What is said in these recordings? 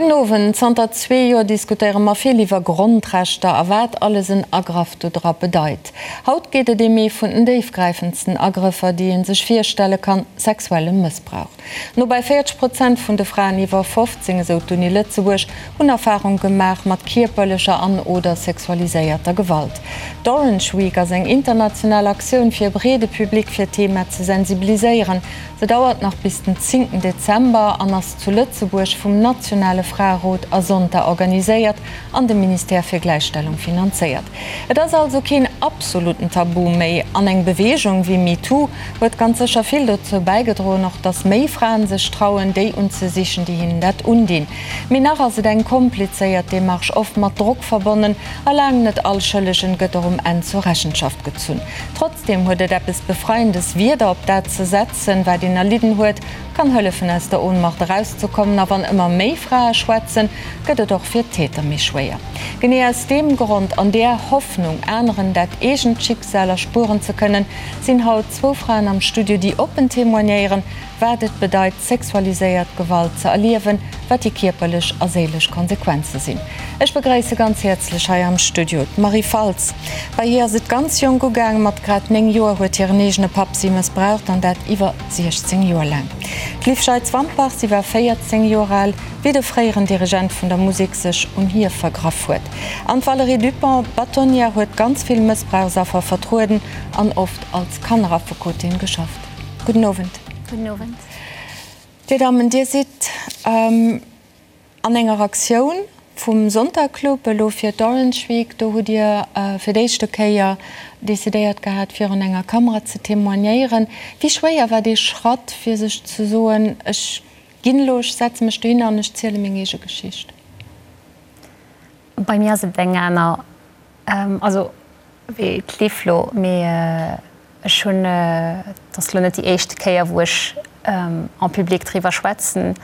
Gudden Owend. Zanter zwee Joer diskutéiere mer vill iwwer Grondrechter a wat alles en Agraff do dra bedeit. Haut geet et ém ee vun den déifgräifendsten Agrëffer, déi ee sech virstelle kann, sexuelle Mëssbrauch. No bei 40 Prozent vun de Fraen iwwer 15, esou d'Uni Lëtzebuerg, hunn Erfarung gemaach mat kierperlecher an oder sexualiséierter Gewalt. D'Orange Week ass eng international Aktioun, fir e breede Public fir d'Thema ze sensibiliséieren. Se dauert nach bis den zéngten Dezember an ass zu Lëtzebuerg vum nationale Fraerot a Zonta organiséiert an dem Ministère fir Gläichstellung finanzéiert. Et ass also keen absoluten Tabu méi an eng Beweegung wéi MeToo huet ganz sécher vill dozou bäigedroen, och datt méi Fraen sech trauen, déi unzesichen, déi hinnen dat undinn. Mee nach ass et eng komplizéiert Demarche, oft mat Drock verbonnen a laang net all Schëllegen gëtt och um Enn zur Rechenschaft gezunn. Trotzdeem huet et eppes Befreiendes, Wierder op dat ze setzen, wat een erlidden huet, kann hëllefen aus der Ohnmacht erauszekommen. A wann ëmmer méi Frae schwätzen, gëtt et och fir d'Täter méi schwéier. Genee aus deem Grond, an där Hoffnung, aneren dat eegent Schicksal erspueren ze kënnen, sinn haut zwou Fraen am Studio, déi oppen témoignéieren, wat et bedeit, sexualiséiert Gewalt ze erliewen, wat déi kierperlech a séilesch Konsequenze sinn. Ech begréisse ganz häerzlech hei am Studio d'Marie Faltz. Bei hir ass et ganz jonk ugaang, mat grad 9 Joer huet hiren eegene Papp si mëssbraucht an dat iwwer 16 Joer laang. D'Liv Scheitz-Wampach, si war 14 Joer al, wéi de fréieren Dirigent vun der Musek sech un hir vergraff huet. An d'Valérie Dupong, Bâtonnière, huet ganz vill Mëssbrauchsaffer vertrueden an oft als Kanneraffekotin geschafft. Gudden Owend. Gudden Owend. Dir Dammen, Dir sidd an enger Aktioun vum Sonntagclub elo fir d'Orange Week. Do hutt Dir fir d'éischte Kéier decidéiert gehat, virun enger Kamera ze témoignéieren. Wéi schwéier war dee Schratt, fir sech ze soen, ech ginn elo, ech setze mech dohinner an ech ziele meng eege Geschicht? Bei mir ass et eng aner. Also wéi d'Liv lo, mee ech hunn, et ass lo net déi éischt Kéier wou ech en public driwwer schwätzen,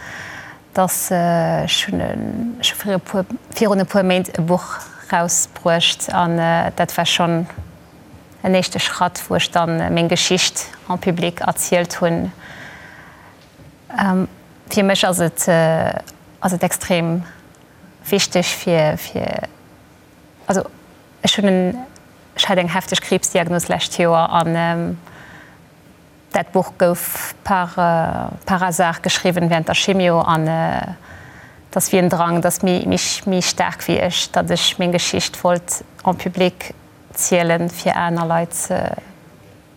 dass ech hunn ech hu vir e puer, virun e puer Méint e Buch rausbruecht an dat war schonn en éischte Schratt, wou ech dann meng Geschicht en public erzielt hunn. Fir mech ass et ass et extrem wichteg fir fir Also ech hunn en, ech hat eng hefteg Kriibsdiagnos lescht Joer an dat Buch gouf par par hasard geschriwwen während der Chimio an et ass wéi en Drang, et ass méi méi méi staark wéi ech, datt ech meng Geschicht wollt en public zielen, fir aner Leit ze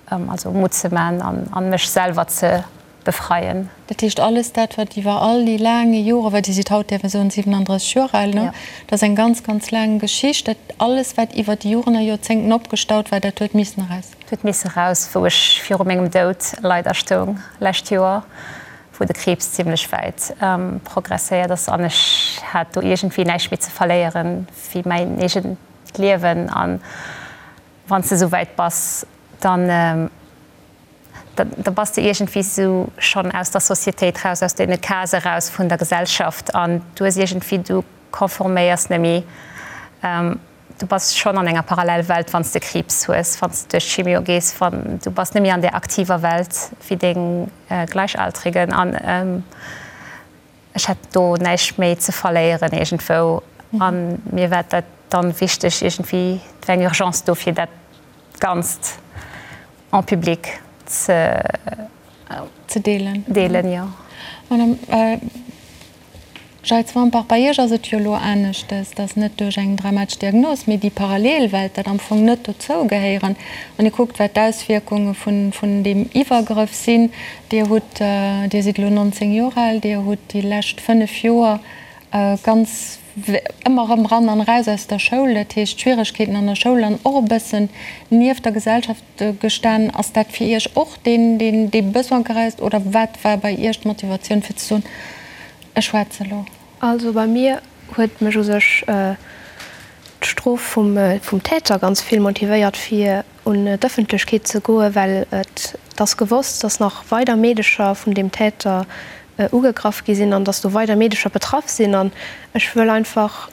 Also Mutt ze man an mech selwer ze befreien. Dat heescht alles dat wat iwwer all déi laange Joren, well Dir sidd haut däerf ech soen 37 Joer al, ne? Dat ass eng ganz, ganz laang Geschicht. Dat alles wat iwwer déi Joren a Joerzéngten opgestaut war, dat huet missen eraus. Dat huet misse raus, wou ech viru mengem Doud leider stoung lescht Joer, wou de Kriibs zimlech wäit progresséiert ass an ech hat do iergendwéi näischt méi ze verléieren wéi mäin eegent Liewen an Wann s de esou wäit bass, dann, da bass de iergendwéi esou schonn aus der Societéit raus, aus deene Case raus vun der Gesellschaft an du hues iergendwéi, du konforméiers net méi. Du bass schonn an enger Parallelwelt, wann s de Kriibs hues, wann s de duerch d'Chimio gees, wann, du bass net méi an där aktiver Welt wéi deng Gleichaltrigen an. Ech hätt do näischt méi ze verléieren iergendwou a mir war dat dann wichteg iergendwéi, et war eng Urgence do fir dat Ganzt en public ze Ze deelen. Deelen, jo. Madame Jeitz-Wampach, bei Iech ass et jo elo aneschtes, dass net duerch eng dramatesch Diagnos, mee déi Parallelwelt, dat am Fong net dozou gehéieren. Wann ee kuckt, wat d'Auswierkunge vun deem Iwwergrëff sinn, Dir hutt, Dir sidd elo 19 Joer al, Dir hutt déi lescht 5 Joer ganz ëmmer erëm ran an eraus aus der Schoul, dat heescht Schwieregkeeten an der Schoul an och e bëssen nieft der Gesellschaft gestan. Ass dat fir Iech och deen, deen dee Besoin gereist oder wat war bei Iech d'Motivatioun fir ze soen, ech schwätze elo? Also bei mir huet mech u sech d'Strof vum Täter ganz vill motivéiert fir un d'Ëffentlechkeet ze goen, well et ass gewosst, dass nach weider Meedecher vun deem Täter ugegraff gi sinn an dass do weider Meedecher betraff sinn. An ech wëll einfach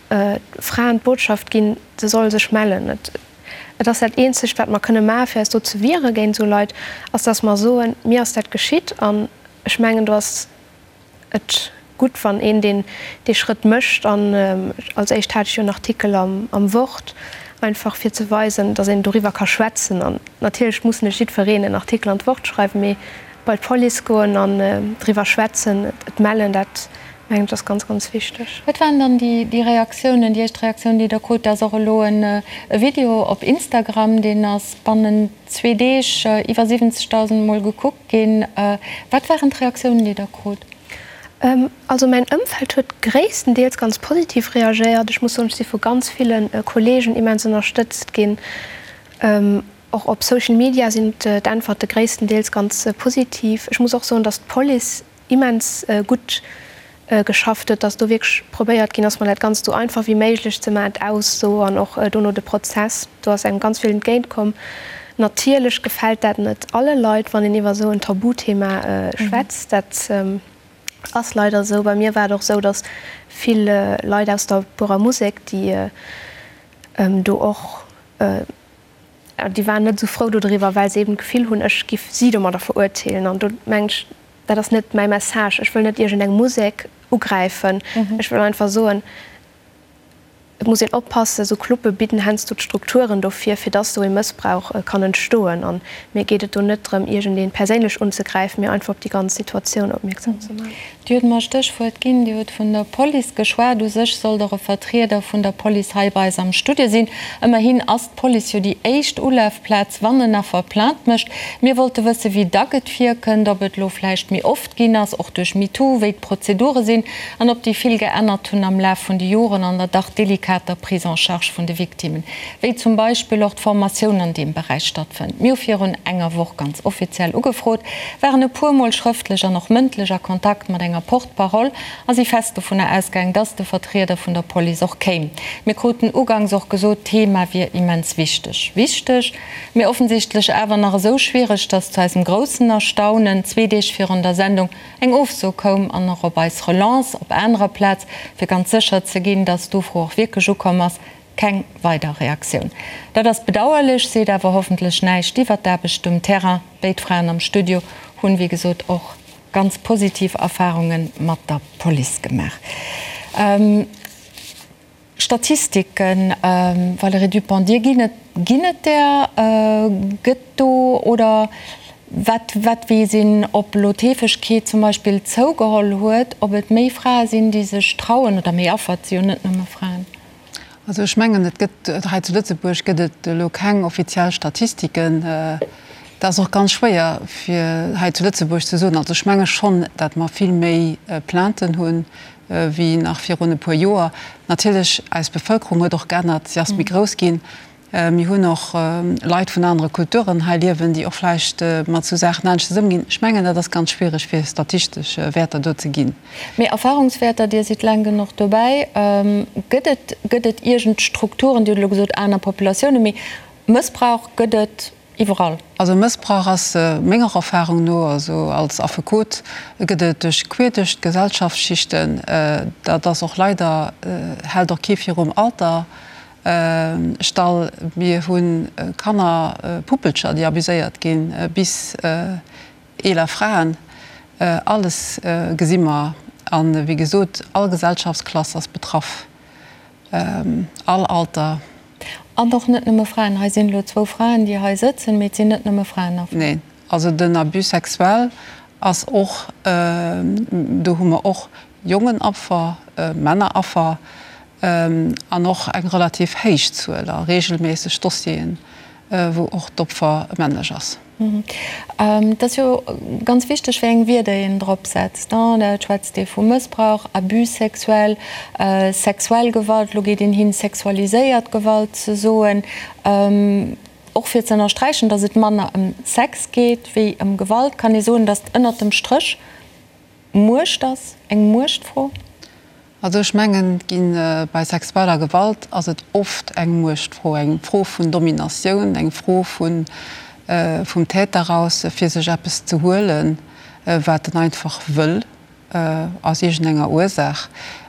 Fraen d'Botschaft ginn, se solle sech mellen. Et ass dat eenzegt, wat mer kënne maachen, fir eis do ze wiere géint esou Leit, ass, dass mer soen, mir ass dat geschitt. An ech mengen, do ass et. gutt, wann een deen dee Schrëtt mécht. An als éischt hat ech jo en Artikel am am Wort, einfach fir ze weisen, datt een doriwwer ka schwätzen. An natierlech muss net jiddwereen en Artikel an d'Wort schreiwen, mee bei d'Police goen an driwwer schwätzen, et mellen, dat mengen ech ass ganz, ganz wichteg. Wat waren dann déi déi Reaktiounen, déi éischt Reaktioun, déi Der krut? Da ass och elo e Video op Instagram, deen ass bannent zwee Deeg iwwer 70.000 Mol gekuckt ginn. Wat waren d'Reaktiounen, déi Der krut? Also mäin Ëmfeld huet gréisstendeels ganz positiv reagéiert. Ech muss soen, ech si vu ganz ville Kollegen immens ënnerstëtzt ginn. Och op Social Media sinn d'Äntwerte gréisstendeels ganz positiv. Ech muss och soen, datt d'Police immens gutt geschafft huet, datt do wierklech probéiert ginn ass, mer dat Ganzt esou einfach wéi méiglech ze maachen, d'Ausso an och dono de Prozess. Do ass engem ganz vill entgéint komm. Natierlech gefält dat net alle Leit, wann een iwwer esou en Tabuthema schwätzt. Dat ass leider esou. Bei mir war et och esou, datt vill Leit aus der Buerer Musek, déi do och, déi waren net esou frou dodriwwer, well se eben d'Gefill hunn, ech giff si domadder verurteelen. An do mengen ech, dat ass net mäi Message. Ech wëll net iergendeng Musek ugräifen. Ech wëll einfach soen, Et muss een oppassen, esou Clube bidden heiansdo d'Strukturen dofir, fir dass esou ee Mëssbrauch kann entstoen. An mir geet et do net drëm, iergendee perséinlech unzegräifen, mee einfach op déi ganz Situatioun opmierksam ze maachen. Dir hutt mer e Stéchwuert ginn, Dir hutt vun der Police geschwat. U sech sollt och e Vertrieder vun der Police hei bei eis am Studio sinn. Ëmmerhin ass d'Police jo déi éischt Ulafplaz, wann en Affer Plainte mécht. Mir wollte wëssen, wéi dack et virkënnt, ob et elo vläicht méi oft ginn ass, och duerch MeToo, wéi d'Prozedure sinn an ob déi vill geännert hunn am Laf vun de Joren an der dach delikater Prise en charge vun de Victimmen, wéi zum Beispill och d'Formatioun an deem Beräich stattfënnt. Mir hu virun enger Woch ganz offiziell ugefrot, waren e puer Mol schrëftlech an och mëndlech a Kontakt mat enger Porte-parole a si fest dovunner ausgaang, dass de Vertrieder vun der Police och kéim. Mir kruten uganks och gesot, d'Thema wier immens wichteg. Wichteg, mee offensichtlech awer nach esou schwiereg, dass zu eisem groussen Erstaunen zwee Deeg virun der Sendung eng Ofso koum an och op eis Relance op anerer Plaz, fir ganz sécher ze ginn, dass d'Ufro och wierklech ukomm ass, keng weider Reaktioun. Dat ass bedauerlech, seet awer hoffentlech näischt iwwert d'Aarbecht um Terrain. Béid Fraen am Studio hunn, wéi gesot, och ganz positiv Erfarunge mat der Police gemaach. Statistiken, Valérie Dupong, Dir ginn et, ginn et där? Gëtt do, oder wat, wat weess een, ob elo d'Heefegkeet zum Beispill zougeholl huet, ob et méi Frae sinn, déi sech trauen, oder méi Affer, et si jo net nëmme Fraen? Also ech mengen, et gëtt, hei zu Lëtzebuerg gëtt et elo keng offiziell Statistiken. Dat ass och ganz schwéier fir hei zu Lëtzebuerg ze soen. Also ech menge schonn, datt mer vill méi Plainten hunn wéi nach virun e puer Joer. Natierlech, eis Bevëlkerung huet och geännert, si ass méi grouss ginn. Mir hunn och Leit vun anere Kulturen hei liewen, déi och vläicht mat esou Saachen aneschters ëmginn. Ech mengen, dat ass ganz schwiereg, fir statistesch Wäerter do ze ginn. Mee Erfahrungswäerter, Dir sidd laang genuch dobäi, gëtt et, gëtt et iergend Strukturen, Dir hutt elo gesot aner Populatiounen, mee Mëssbrauch gëtt et iwwerall? Also Mëssbrauch ass menger Erfahrung no, also als Affekot, gëtt et duerch queer duerch d'Gesellschaftsschichten. Dat ass och leider, hält och kee virum Alter stall. Mir hu Kanner, Puppelcher, déi abuséiert ginn, bis eeler Fraen. Alles gesi mer. A wéi gesot, all Gesellschaftsklass ass betraff, all Alter. An och net nëmme Fraen. Hei sinn elo zwou Fraen, déi hei sëtzen, mee et sinn net nëmme Fraen Affer. Neen, also den Abus sexuel ass och, do hu mer och Jongen Affer, Männer Affer an och eng relativ héich Zuel a reegelméisseg Dossieren, wou och d'Opfer männlech ass. Et ass jo ganz wichteg, wéi eng Wierder een drop setzt. Da schwätzt ee vu Mëssbrauch, Abus sexuel, sexuell Gewalt, elo geet een hin, sexualiséiert Gewalt ze soen, och fir ze ënnersträichen, datt et manner ëm Sex geet wéi ëm Gewalt. Kann ee soen, datt ënnert dem Stréch Muecht ass, eng Muechtfro? Also ech mengen, et ginn, bei sexueller Gewalt ass et oft eng Muechtfro, eng Fro vun Dominatioun, eng Fro vun, vum Täter aus, fir sech eppes ze huelen, wat en einfach wëll, aus iergendenger Ursaach.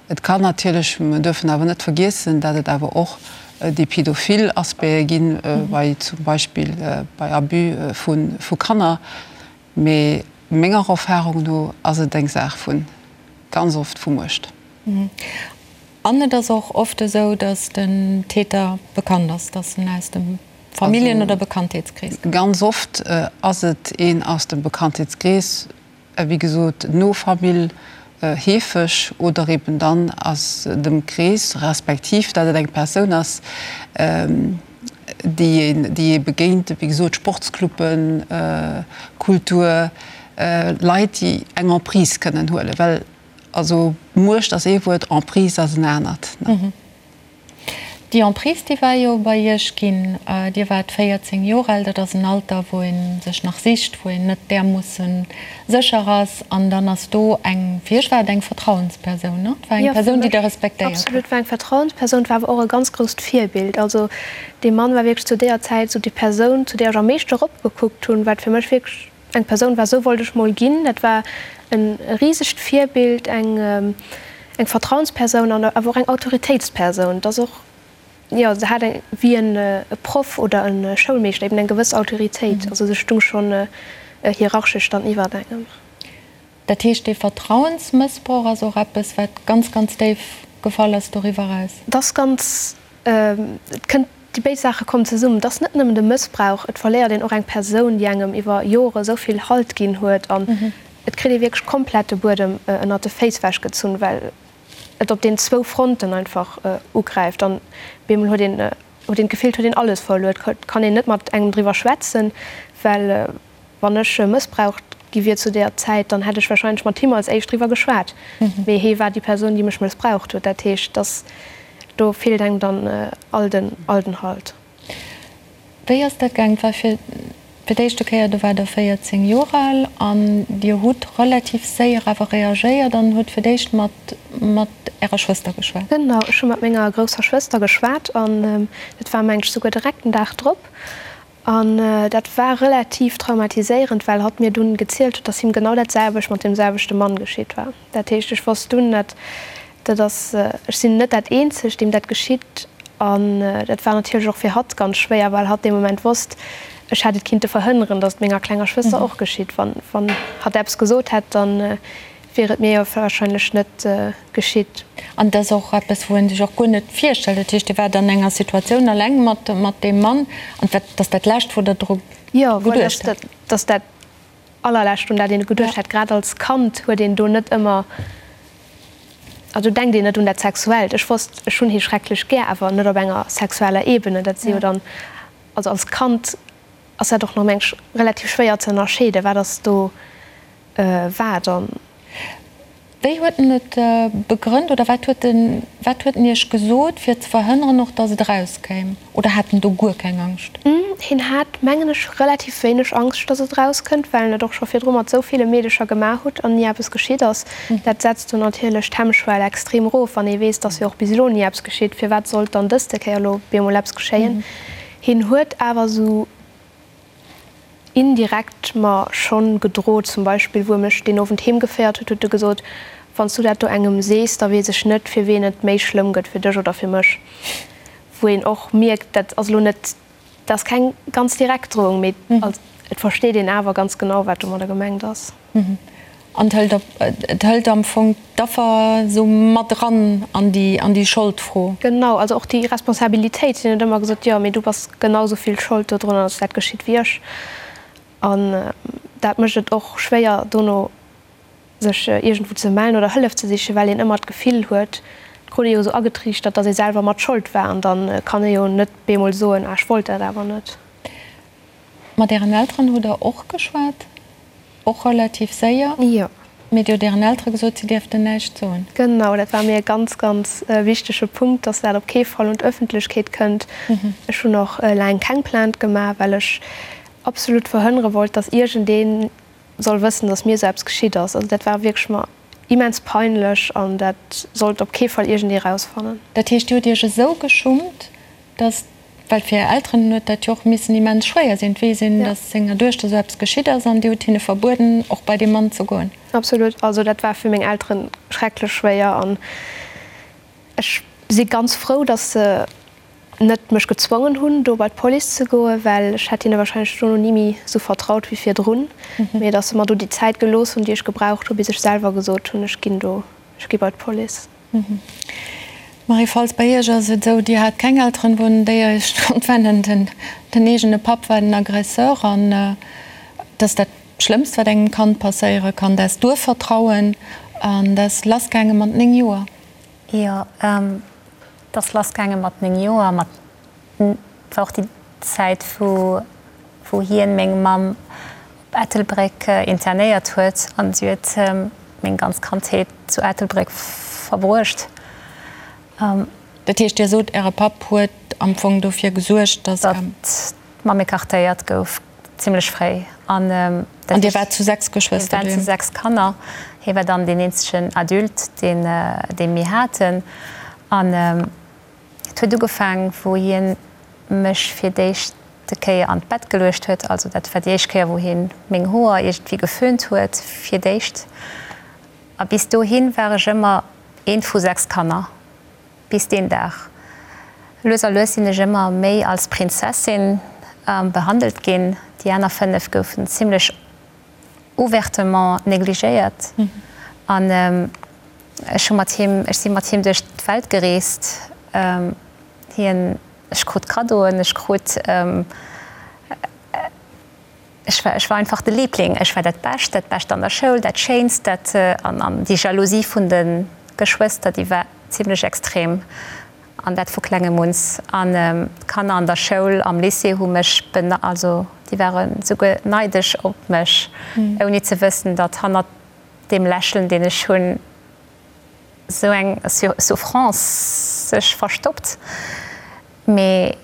Et kann natierlech, mer duerfen awer net vergiessen, dat et awer och déi pädophil Aspecte ginn, bei zum Beispill bei Abus vu Kanner. Mee menger Erfahrung no ass et eng Saach vu. ganz oft vu Muecht. An et ass och oft esou, datt den Täter bekannt ass, datt en aus dem Familljen oder Bekanntheetskrees kënnt. Ganz oft ass et een aus dem Bekanntheetskrees, wéi gesot no Famill heefeg oder eben dann aus dem Krees, respektiv datt et eng Persoun ass, déi een, déi ee begéint, wéi gesot Sportscluben, Kultur, Leit, déi eng Emprise kënnen huelen, well also Muecht ass ee Wuert, Emprise ass en anert. Déi Emprise, déi war jo bei Iech ginn. Dir waart 14 Joer al, dat ass en Alter, wou ee sech nach sicht, wou een net därmoosse sécher ass. An dann ass do eng, fir Iech war et eng Vertrauenspersoun, ne? Et war eng Persoun, déi Der respektéiert hutt. Absolut, et war eng Vertrauenspersoun, et war awer och e ganz grousst Virbild. Also dee Mann war wierklech zu deeër Zäit esou déi Persoun, zu deeër ech am meeschte eropgekuckt hunn, wat fir mech wierklech eng Persoun war, esou wollt ech mol ginn. Dat war e risegt Virbild, eng eng Vertrauenspersoun an awer och eng Autoritéitspersoun. Et ass och, jo, se hat eng, wéi en Proff oder e Schoulmeeschter eben eng gewëss Autoritéit. Also se stung schonn hierarchesch dann iwwert engem. Dat heescht, dee Vertrauensmëssbrauch ass och eppes, wat ganz, ganz déif gefall ass doriwwer eraus? Et ass ganz, et kënnt, déi béid Saache kommen zesummen. Et ass net nëmmen de Mëssbrauch, et verléiert een och eng Persoun, déi engem iwwer Jore esou vill Halt ginn huet an et kritt ee wierklech komplett de Buedem ënnert de Féiss wechgezunn, well et op den zwou Fronten einfach ugräift an bemol huet een huet een d'Gefill, et huet een alles verluer. Et kann een net mat engem driwwer schwätzen, well wann ech mëssbraucht gi wier zu deeër Zäit, dann hätt ech warscheinlech mat him als éischt driwwer geschwat. Mee hee war déi Persoun, déi mech mëssbraucht huet. Dat heescht, dass do feelt engem dann all den all den Halt. Wéi ass dat gaang? Et war fir fir d'éischte Kéier, do waart Der 14 Joer al an Dir hutt relativ séier awer reagéiert an hutt fir d'éischt mat mat Ärer Schwëster geschwat. Genau, ech hu mat menger grousser Schwëster geschwat an dat war meng ech souguer direkt den Dag drop. An dat war relativ traumatiséierend, well hatt mir dunn gezielt huet, dass him genau dat selwecht mat deem selwechte Mann geschitt war. Dat heescht, ech wosst dunn, dat dat ass, ech sinn net dat eenzegt, deem dat geschitt. An dat war natierlech och fir hatt ganz schwéier, well hatt dee Moment wosst, ech hätt et kinnte verhënneren, dass et menger klenger Schwëster och geschitt. Wann wann hatt eppes gesot hätt, dann wier et mir jo warscheinlech net geschitt. An et ass och eppes, wou ee sech och guer net virstellt. Dat heescht, Dir waart an enger Situatioun alleng mat mat deem Mann an dat ass dat Lescht, wou Der dru geduecht hätt. Jo, voilà, dat ass dat Allerlescht, un dat een geduecht hätt. Grad als Kand huet een do net ëmmer, also denkt een net un dat Sexuellt. Ech wosst, ech hunn hie schrecklech gär, awer net op enger sexueller Ebene. Dat si jo dann, also als Kand ass dat och nach, meng ech, relativ schwéier ze ënnerscheeden, wat ass do wat. An. Wéi huet en et begrënnt oder wat huet en, wat huet en Iech gesot, fir ze verhënneren och, datt et erauskéim? Oder hat en do guer keng Angscht? Hien hat, mengen ech, relativ wéineg Angscht, datt et erauskënnt, well en et och scho virdru mat esou ville Meedecher gemaach hutt an ni eppes geschitt ass. Dat setzt do natierlech d'Hemmschwell extrem erof, wann ee weess, datt jo och bis elo ni eppes geschitt, firwat sollt dann dëste Kéier elo bemol eppes geschéien? Hien huet awer esou indirekt mer schonn gedrot. Zum Beispill, wou e mech deen Owend heem geféiert huet, huet e gesot, Wann s du dat do engem sees, da weess ech net, fir ween et méi schlëmm gëtt, fir dech oder fir mech. Wou een och mierkt, dat ass elo net, dat ass keng ganz direkt Drohung, mee et versteet een awer ganz genau, wat domadder gemengt ass. An et hëlt op, et hëlt am Fong d'Affer esou mat eran an déi, an déi Scholdfro. Genau, also och déi Responsabilitéit. Hien huet ëmmer gesot, jo, mee du bass genau esou vill Schold dodrunner, datt dat geschitt, wéi ech. An dat mécht et och schwéier, dono sech iergendwou ze mellen oder Hëllef ze sichen, well een ëmmer d'Gefill huet, et krut ee jo esou agetriichtert, datt ee selwer mat Schold war. An da kann ee jo net bemol soen, ah, ech wollt dat awer net. Mat Ären Elteren hutt Der och geschwat, och relativ séier? Jo. Mee Dir hutt Ären Eltere gesot, si dierften näischt soen? Genau, dat war mir e ganz, ganz wichtege Punkt, dass dat op kee Fall un d'Ëffentlechkeet kënnt. Ech hunn och laang keng Plainte gemaach, well ech absolut verhënnere wollt, dass iergendee soll wëssen, dass mir esou eppes geschitt ass. Also dat war wierklech mer immens peinlech an dat sollt op kee Fall iergendee rausfannen. Dat heescht, Dir hutt Iech esou geschummt, dass, well fir Är Elteren huet dat jo och missen immens schwéier sinn, et weess een, dass senger Duechter esou eppes geschitt ass an Dir hutt hinne verbueden, och bei dee Mann ze goen. Absolut, also dat war fir meng Elteren schrecklech schwéier an ech si ganz frou, dass se net mech gezwongen hunn, do bei d'Police ze goen, well ech hätt hinne wahrscheinlech dono ni méi esou vertraut wéi virdrun, mee dass se mer do déi Zäit gelooss hunn, déi ech gebraucht hunn, bis ech selwer gesot hunn, ech ginn do. Ech gi bei d'Police. Marie Faltz, Bei Iech ass et esou, Dir hat keng Elteren, wou un déi Iech konnt wennen. Den, den eegene Papp war den Aggresseur an et ass dat Schlëmmst, wat engem Kand passéiere kann, dat Duervertrauen. An dat ass lassgaange mat 9 Joer. Jo, et ass lassgaange mat 9 Joer. Mat, et war och déi Zäit, wou, wou hien meng Mamm op Ettelbréck internéiert huet an si huet meng ganz Kandheet zu Ettelbréck verbruecht. Dat heescht, Dir sot, Äre Papp huet am Fong dofir gesuergt, datt. Datt d'Mamm écartéiert gouf, zimlech fréi. An dat Dir waart zu 6 Geschwëster doheem? Mir waren zu 6 Kanner. Hie war dann deen eenzegen Adulte, deen, dee mir haten. An Et huet ugefaang, wou hien mech fir d'éischte Kéier an d'Bett geluecht huet. Also dat war déi éischt Kéier, wou hien meng Hoer iergendwéi geföhnt huet fir d'éischt. A bis dohi war ech ëmmer eent vu 6 Kanner. Bis deen Dag. Lues a lues sinn ech ëmmer méi als Prinzessin behandelt ginn. Déi aner 5 goufen zimlech ouvertement négligéiert an ech hu mat him, ech si mat him duerch d'Welt gereest. Hien, ech krut Kaddoen, ech krut, ech war, ech war einfach de Liebling, ech war dat Bescht, dat Bescht an der Schoul, dat Schéinst, dat an an déi Jalousie vun de Geschwëster, déi war zimlech extrem. An dat vu klengem uns. An d'Kanner an der Schoul, am Lycée hu mech bene, also déi ware souguer neidesch op mech, ouni ze wëssen, datt hannert deem Lächeln, deen ech hunn, esou eng Souffrance sech verstoppt. Mee.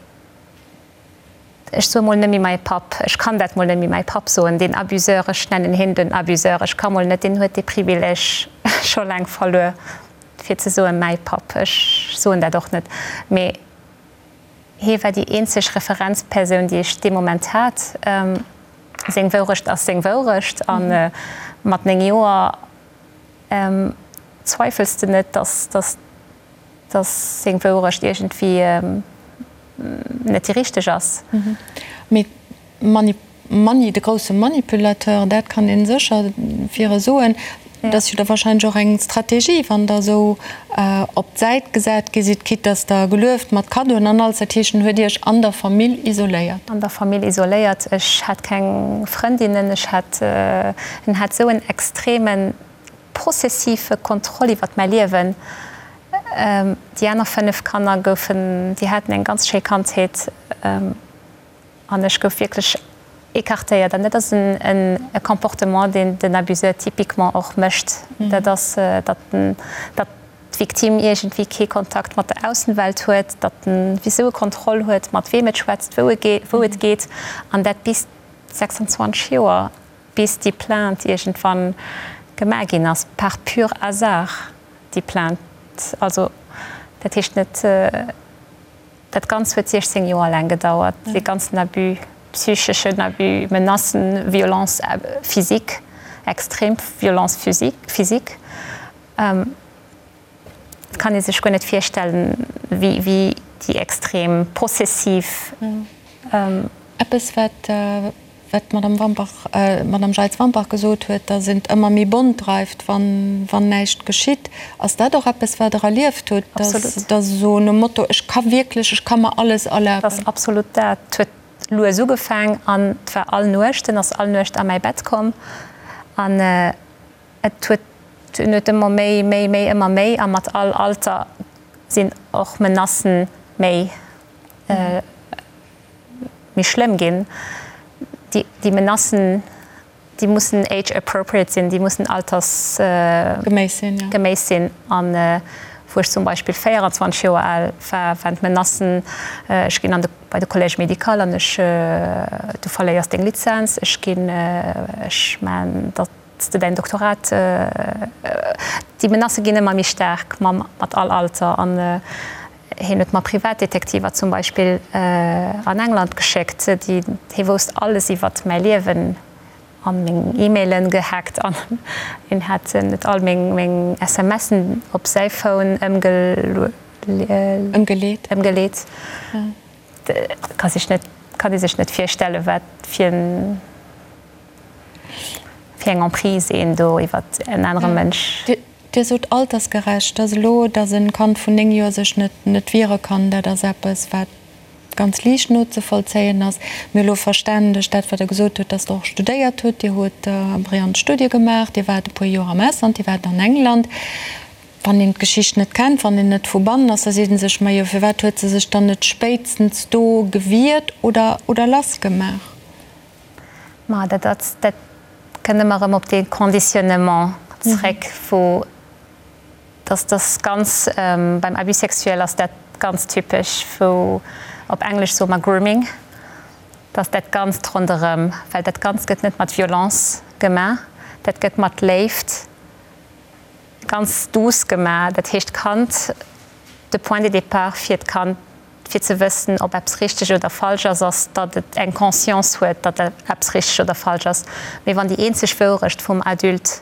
Ech soe mol net méi mäi Papp, ech kann dat mol net méi mäi Papp soen, deen Abuseur, ech nennen hien den Abuseur, ech ka mol net, deen huet dee Privileg scho laang verluer, fir ze soe mäi Papp, ech soen dat och net, mee hie war déi eenzeg Referenzpersoun, déi ech dee Moment hat. Seng Wourecht ass seng Wourecht a mat 9 Joer zweifels de net, dass, dass. dass seng Wourecht iergendwéi net déi richteg ass. Mee Mani, de grousse Manipulateur, dat kann ee sécher fir e soen. Dat ass jo da wahrscheinlech och eng Strategie, wann Der esou op d'Säit gesat gi sidd, quitte dass Der gelueft mat Kaddoen an alles. Dat heescht, en huet Iech an der Famill isoléiert. An der Famill isoléiert. Ech hat keng Frëndinnen. Ech hat, en hat esou en extremen possessive Kontroll iwwert mäi Liewen. Déi aner 5 Kanner goufen, déi haten eng ganz schéi Kandheet an ech gouf wierklech écartéiert. An dat ass e Comportement, deen den Abuseur typiquement och mécht. Dat ass, datt den, datt d'Victime iergendwéi kee Kontakt mat der Aussenwelt huet, datt en wéi sou e Kontroll huet, mat weem et schwätzt, wou et geet, an dat bis 26 Joer. Bis déi Plainte iergendwann gemaach ginn ass, par pur hasard, déi Plainte, also dat heescht net, dat Ganzt huet 16 Joer laang gedauert, dee ganzen Abus, psycheschen Abus, Menacen, Violence physique, extrem Violence physique. Et kann ee sech guer net virstellen, wéi déi extrem possessiv. Eppes, wat d'Madame Wampach, d'Madame Jeitz-Wampach gesot huet, datt een et ëmmer méi bont dreift, wann näischt geschitt. Ass dat och eppes, wat Der erlieft hutt, datt esou nom Motto, ech ka wierklech, ech ka mer alles erlaben? Dat ass absolut dat. Et huet lues ugefaang an et war all Nuecht, en ass all Nuecht a mäi Bett komm an Et huet en huet ëmmer méi, méi, méi, ëmmer méi a mat all Alter sinn och Menacen méi, méi schlëmm ginn. Déi, déi Menacen, déi mussen age appropriate sinn, déi mussen alters Geméiss sinn, jo. Geméiss sinn. An wou ech zum Beispill 24 Joer al war, waren d'Menacen, ech ginn an de, bei de Collège médical an ech, du verléiers deng Lizenz, ech ginn, ech man datt, s de däin Doktorat, déi Menacë ginn ëmmer méi staark mam mat all Alter an hien huet mer Privatdetektiver zum Beispill an England geschéckt, déi hie wousst alles iwwert mäi Liewen an meng E-Mailen gehackt an hien hat net all meng meng SMSen op säi Phone ëmgeleet. Ëmgeleet. Ka sech net kann ee sech net virstelle wat fir en. Fir eng Emprise een do iwwert en anere Mënsch. Dir sot altersgerecht, dass elo, dass e Kand vun 9 Joer sech net net wiere kann, dat ass eppes, wat ganz liicht nozevollzéien ass. Mir elo verständeg dat, wat Der gesot hutt, dass Der och studéiert hutt. Dir hutt brillant Studie gemaach, Dir waart e puer Joer am Ausland, Dir waart an England. Wann een d'Geschicht net kennt, wann een net vu bannen ass, da seet ee sech, Majo, firwat huet se sech dann net spéitstens do gewiert oder oder lassgemaach? Ma dat ass, dat kënnt ëmmer erëm op dee Conditionnement zréck, wou dass dass ganz, beim Abus sexuel ass dat ganz typesch, wou op Englesch soe mer Grooming, dass dat Ganzt ronderëm, well dat Ganzt gëtt net mat Violence gemaach, dat gëtt mat Léift ganz douce gemaach. Dat heescht, d'Kand, de Point de départ fir d'Kand, fir ze wëssen, ob eppes richteg oder falsch ass, ass, datt et eng Conscience huet, datt eppes richteg oder falsch ass. Mee wann déi eenzeg Wourecht vum Adulte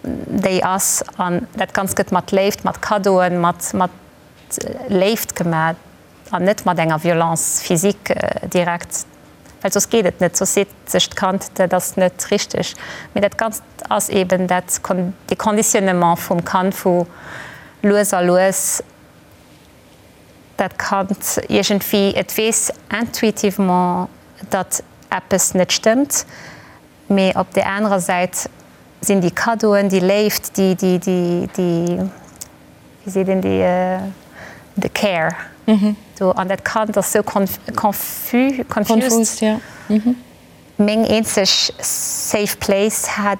déi ass, an dat Ganzt gëtt mat Léift, mat Kaddoen, mat mat Léift gemaach an net mat enger Violence physique direkt, well soss geet et net, soss seet sech d'Kand, dat ass net richteg. Mee dat Ganzt ass eeben dat, dee Conditionnement vum Kand, wou lues a lues dat Kand iergendwéi, et weess intuitivement, datt eppes net stëmmt, mee op där anerer Säit sinn déi Kaddoen, déi Léift, déi, déi, déi, déi, wéi seet een, déi, de Care do, an dat Kand ass sou confus, confused. Meng eenzeg safe place hat,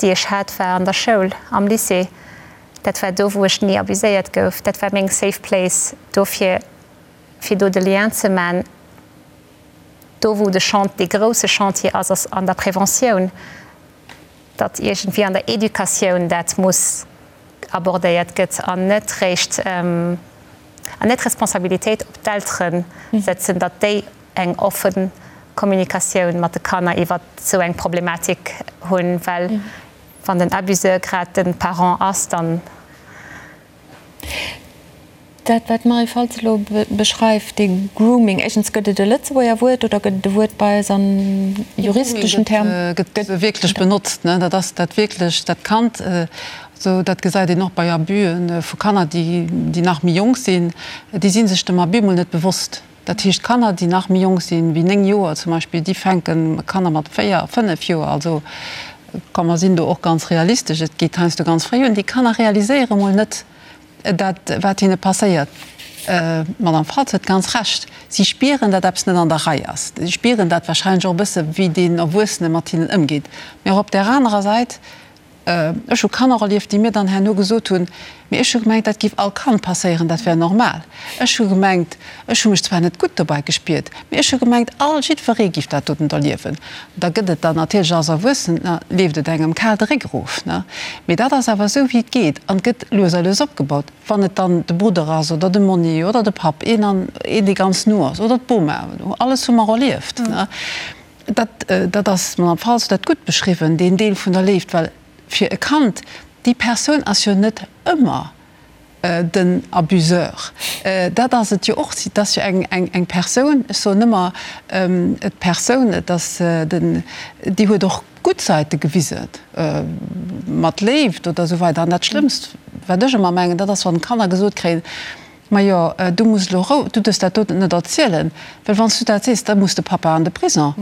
déi ech hat, war an der Schoul, am Lycée. Dat war do, wou ech ni abuséiert gouf. Dat war meng safe place. Dofir, fir do de Lien ze man, do wou de Chant, dee grousse Chantier ass, ass an der Preventioun, datt iergendwéi an der Educatioun dat muss abordéiert gëtt an net réischt, an net d'Responsabilitéit op d'Eltere sëtzen, datt déi eng offen Kommunikatioun mat de Kanner iwwert esou eng Problematik hunn, well wann den Abuseur grad de Parent ass, dann. Dat, wat d'Marie Faltz elo beschreift, dee Grooming, éischtens, gëtt et e Lëtzebuerger Wuert oder gëtt et e Wuert bei eis an juristeschen Term? Gëtt wierklech benotzt, ne? Dat ass dat wierklech dat Kand, esou dat gesäit een och bei Abusë vu Kanner, déi, déi nach méi jonk sinn, déi si sech dem Abus mol net bewosst. Dat heescht, Kanner, déi nach méi jonk sinn wéi 9 Joer zum Beispill, déi fänken, Kanner mat 4, 5 Joer, also komm mer sinn do och ganz realistesch, et geet heiansdo ganz fréi un, déi Kanner realiséiere mol net dat, wat hinne passéiert. D'Madame Faltz huet ganz Recht, si spieren, datt eppes net an der Rei ass. Si spieren dat wahrscheinlech och e bësse wéi deen Erwuessene mat hinnen ëmgeet. Mee och op där anerer Säit, Ech hu Kanner erlieft, déi mir dann herno gesot hunn, Mee ech hu gemengt, dat géif all Kand passéieren, dat wär normal. Ech hu gemengt, ech hu mech zwar net gutt dobäi gespiert, mee ech hu gemengt, all, jiddweree géif dat doten erliewen. Da gëtt et dann natierlech als Erwuessener, leeft et engem kal de Réck erof, ne? Mee dat ass awer esou, wéi et geet an et gëtt lues a lues opgebaut. Wann et dann de Brudder ass oder de Monni oder de Papp, een an een, dee ganz no ass, oder d'Boma, alles hu mer erlieft, ne? Dat, dat ass, d'Madame Faltz huet dat gutt beschriwwen, deen Deel vun der Léift, well fir e Kand, déi Persoun ass jo net ëmmer den Abuseur. Dat ass et jo och, et ass jo eng, eng, eng Persoun, ech soen ëmmer d'Persoun, et ass den, déi huet och gutt Säite gewisen, mat Léift oder esou weider. An dat Schlëmmst, wat ech ëmmer mengen, dat ass, wann d'Kanner gesot kréien, Majo, du muss elo rou, du duerfs dat doten net erzielen, well wann s du dat sees, da muss de Papa an de Prison.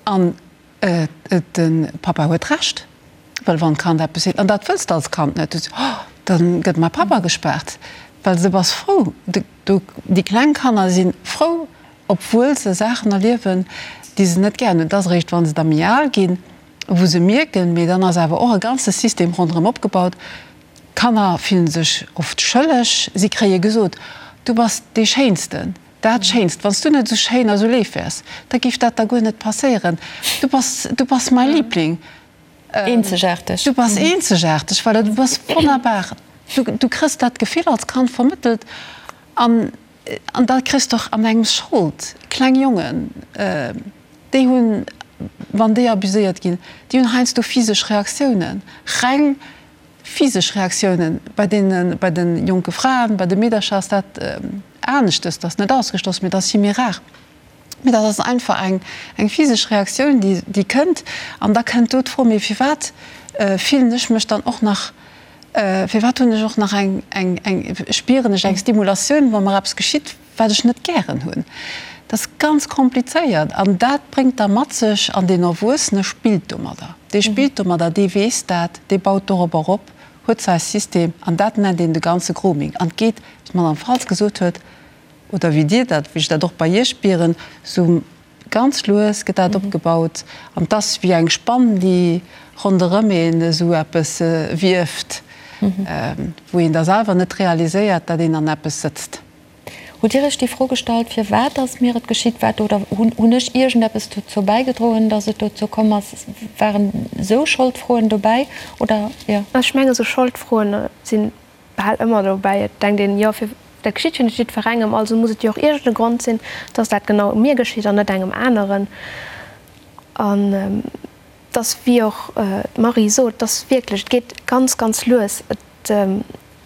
An de Papa huet Recht, well wann d'Kand eppes seet, an dat wëlls de als Kand net, du sees, oh, da gëtt mäi Papa gespaart, well du bass frou, déi kleng Kanner si frou, obwuel se Saachen erliewen, déi se net gären hunn. Et ass eréischt, wa se da méi al ginn, wou se mierken, mee dann ass awer och e ganze System ronderëm opgebaut, D'Kanner fillen sech oft schëlleg. Si kréie gesot, Du bass dee Schéinsten, dat Schéinst. Wann s du net esou schéin a sou léif wäers, da géif dat der guer net passéieren. Du bass, du bass mäi Liebling. Eenzegaarteg. Du bass eenzegaarteg, voilà, du bass wonnerbar. Du, du kriss dat Gefill als Kand vermëttelt an, an da kriss de och an engem Schold. Kleng Jongen, déi hunn, wann déi abuséiert ginn, déi hunn heiansdo physesch Reaktiounen, reng Physesch Reaktiounen bei deene, bei de jonke Fraen, bei de Meedercher ass dat aneschtes, dat ass net ausgeschloss, mee dat ass vill méi rar. Mee dat ass einfach eng, eng physesch Reaktioun, déi, déi kënnt. An da kënnt do d'Fro, mee firwat fillen ech mech dann och nach. Firwat hunn ech och nach eng, eng, eng, spieren ech eng Stimulatioun, wa mer eppes geschitt, wat ech net gären hunn? Dat ass ganz komplizéiert an dat bréngt da mat sech, an deen Erwuessene spillt domadder, dee spillt domadder, dee weess dat, dee baut dorobber op, huet säi System an dat nennt een de ganze Grooming an et geet, wéi d'Madame Faltz gesot huet, oder wéi Dir dat, wéi ech dat och bei Iech spieren, esou Ganz lues gëtt dat opgebaut an 't ass wéi eng Spann, déi ronderëm een esou eppes wieft, wou een da selwer net realiséiert, dat een an eppes sëtzt. Hutt Dir Iech déi Fro gestallt, firwat ass mir et geschitt, wat oder hunn ech iergendeppes dozou bäigedroen, datt et dozou komm ass? Waren esou Scholdfroen dobäi oder jo? Ech mengen, esou Scholdfroen sinn bal ëmmer dobäi. Et denkt een, jo, fir dat geschitt jo net jiddwerengem, also muss et jo och iergend e Grond sinn, dass dat genau mir geschitt an net engem aneren. An et ass, wéi och d'Marie sot, et ass wierklech, et geet ganz, ganz lues. Et,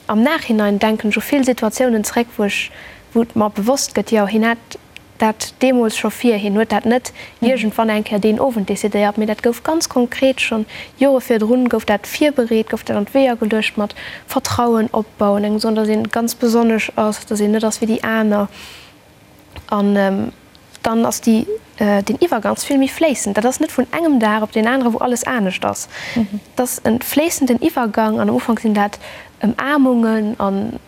am Nachhinein denken ech u vill Situatiounen zréck, wou ech, wou et mer bewosst gëtt, jo, hien hat dat deemools scho vir. Hien huet dat net iergendwann eng Kéier deen Owend decidéiert, mee dat gouf ganz konkret schonn Jore virdrun gouf dat virbereet, gouf dat an d'Weeër geluecht mat Vertrauen opbauen, engem soen, datt een ganz besonnesch ass, datt een net ass wéi déi aner. An dann ass déi, deen Iwwergang ass vill méi fléissend. Dat ass net vun engem Dag op deen anere wou alles anescht ass. Et ass e fléissenden Iwwergang an am Ufank sinn dat Ëmaarmungen an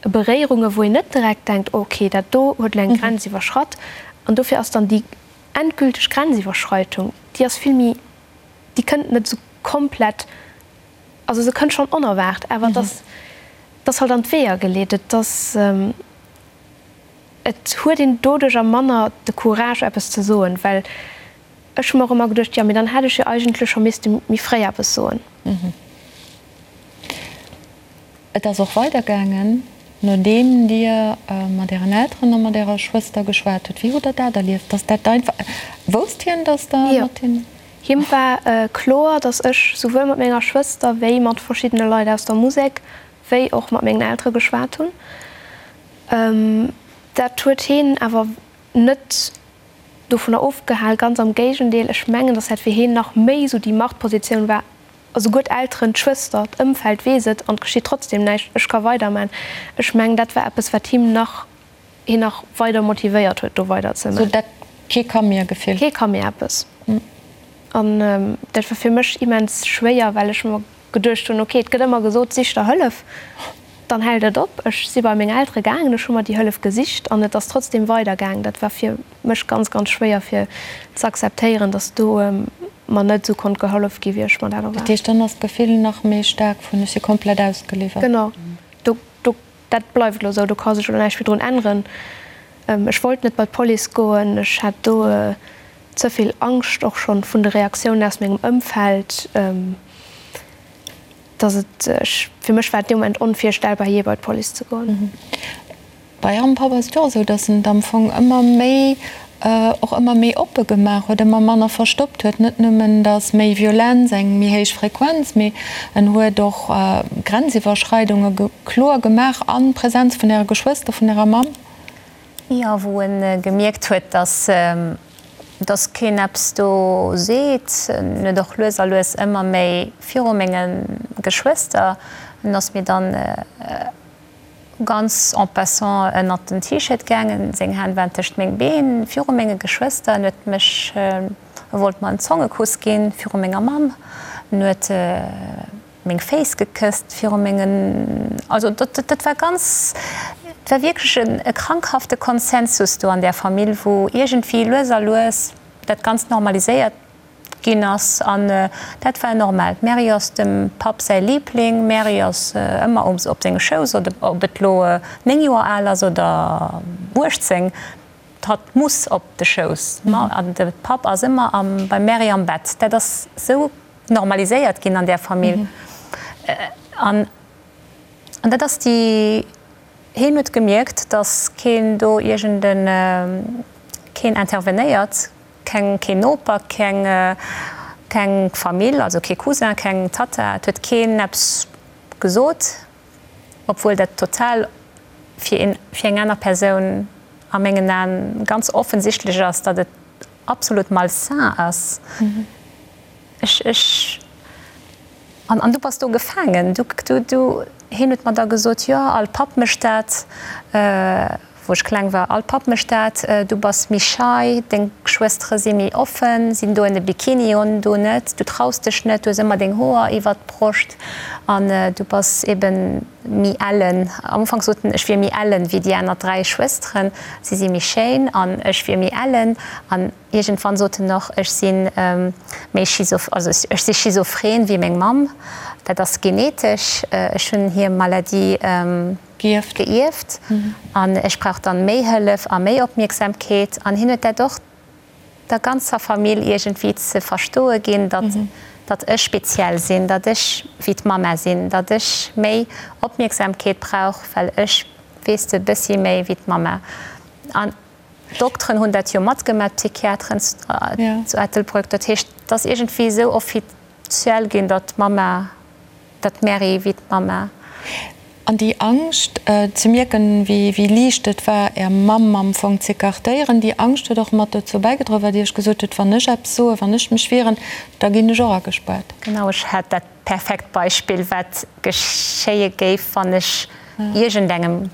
Beréierunge wou een net direkt denkt, ok, dat do huet elo eng Grenz iwwerschratt. An dofir ass dann déi endgülteg Grenziwwerschreitung, déi ass vill méi, déi kënnt net esou komplett, also se kënnt schonn onerwaart, awer et ass, et ass halt an d'Weeër geleet. Et ass, et huet een doduercher manner de Courage eppes ze soen, well ech hu mer och ëmmer geduecht, jo mee dann hätt ech jo eigentlech scho misste méi fréi eppes soen. Et ass och weidergaangen, nodeem Dir mat Ären Elteren a mat Ärer Schwëster geschwat hutt. Wéi hutt Der dat erlieft, dass dat einfach. Wousst hien, dass Der mat hinnen. Jo, him war kloer, dass ech souwuel mat menger Schwëster wéi mat verschiddene Leit aus der Musek, wéi och mat mengen Eltere geschwat hunn. Dat huet hien awer net dovunner ofgehal, ganz am Géigendeel, ech mengen, dass dat fir hien nach méi esou déi Machtpositioun war, Esouguer d'Elteren, d'Schwëster, d'Ëmfeld weess et an et geschitt trotzdem näischt, ech ka weiderman. Ech mengen, dat war eppes, wat him nach, hien nach weider motivéiert huet, do weider ze man. Sou dat kee ka mir Gefill. Kee ka mir eppes. An dat war fir mech immens schwéier, well ech mer geduecht hunn, ok, et gëtt ëmmer gesot, sich der Hëllef, dann hält et op. Ech si bei meng Eltere gaangen, ech hu mer déi Hëllef gesicht an et ass trotzdem weidergaangen. Dat war fir mech ganz, ganz schwéier fir ze akzeptéieren, dass do mer net esou konnt gehollef gi wéi ech mer dat erwaart. Dat heescht, dann ass d'Gefill nach méi staark vun ech si komplett ausgeliwwert. Genau, do, do, dat bleift elo esou, do ka sech elo näischt méi drun änneren. Ech wollt net bei d'Police goen, ech hat do ze vill Angscht och schonn vun de Reaktiounen aus mengem Ëmfeld, dass et, ech, fir mech war et dee Moment onvirstellbar jee bei d'Police ze goen. Bei Ärem Papp ass et jo och esou, datt en et am Fong ëmmer méi, och ëmmer méi oppe gemaach huet, ëmmer manner verstoppt huet. Net nëmmen, datt méi Violenz, eng méi héich Frequenz, mee en huet och Grenziwwerschreidunge kloer gemaach a Präsenz vun Äre Geschwëster, vun Ärer Mamm. Jo, wou e gemierkt huet, datt, datt keen eppes do seet. En huet och lues a lues ëmmer méi viru menge Geschwëster, en ass mir dann, Ganz en passant ënnert den T-Shirt gaangen, seng Hänn waren tëscht meng Been, viru menge Geschwëster. En huet mech, e wollt mer en Zongekuss ginn, viru menger Mamm. En huet meng Féiss gekësst viru mengen, also dat, dat war ganz, et war wierklech e krankhafte Konsensus do an där Famill, wou iergendwéi lues a lues dat Ganzt normaliséiert Ginn ass an dat war normal. D'Mary ass dem Papp säi Liebling. D'Mary ass ëmmer um op senge Schouss, ob et lo 9 Joer al ass oder 18, hatt muss op de Schouss. An de Papp ass ëmmer am beim Mary am Bett. Dat ass sou normaliséiert ginn an där Famill. An an dat ass déi, hien huet gemierkt, datt keen do iergend en, keen intervenéiert. Keng, keen Noper, keng, keng Famill, also kee Cousin, keng Tatta, et huet keen eppes gesot, obwuel dat total fir een, fir eng aner Persoun a mengen Aen ganz offensichtlech ass, datt et absolut malsain ass. Ech, ech. An, an du bass do gefaangen. Du, du, du, hien huet mer da gesot, jo, all Papp mécht dat, wou ech kleng war, all Papp mécht dat, du bass méi schei, deng Schwëstere si méi offen, sinn doen e Bikini un, du net, du traus dech net, du hues ëmmer deng Hoer iwwert d'Broscht an du bass eben méi ellen. Am Ufank sot en, ech wier méi ellen wéi déi aner 3 Schwësteren, si si méi schéin an ech wier méi ellen. An Iergendwann sot en och, ech si méi schizo, also ech si schizophren wéi meng Mamm. Dat ass genetesch, ech hunn hir Maladie gëierft an ech brauch dann méi Hëllef a méi Opmierksamkeet. An hien huet dat och der ganzer Famill iergendwéi ze verstoe ginn, datt datt ech speziell sinn, datt ech wéi d'Mamma sinn, datt ech méi Opmierksamkeet brauch, well ech, weess de, bëssi méi wéi d'Mamma. An D'Dokteren hunn dat jo matgemaach, d'Psychiateren zu Ettelbrück. Dat heescht, et ass iergendwéi esou offiziell ginn, datt d'Mamma, datt d'Mary wéi d'Mamma. An déi Angscht, ze mierken, wéi liicht et war, Är Mamm am Fong z'écartéieren, déi Angscht huet och mat dozou bäigedroen, wat Dir iech gesot hutt, Wann ech eppes soen, wann ech mech wieren, da ginn ech och agespaart. Genau, ech hat dat perfekt Beispill, wat geschéie géif, wann ech iergendengem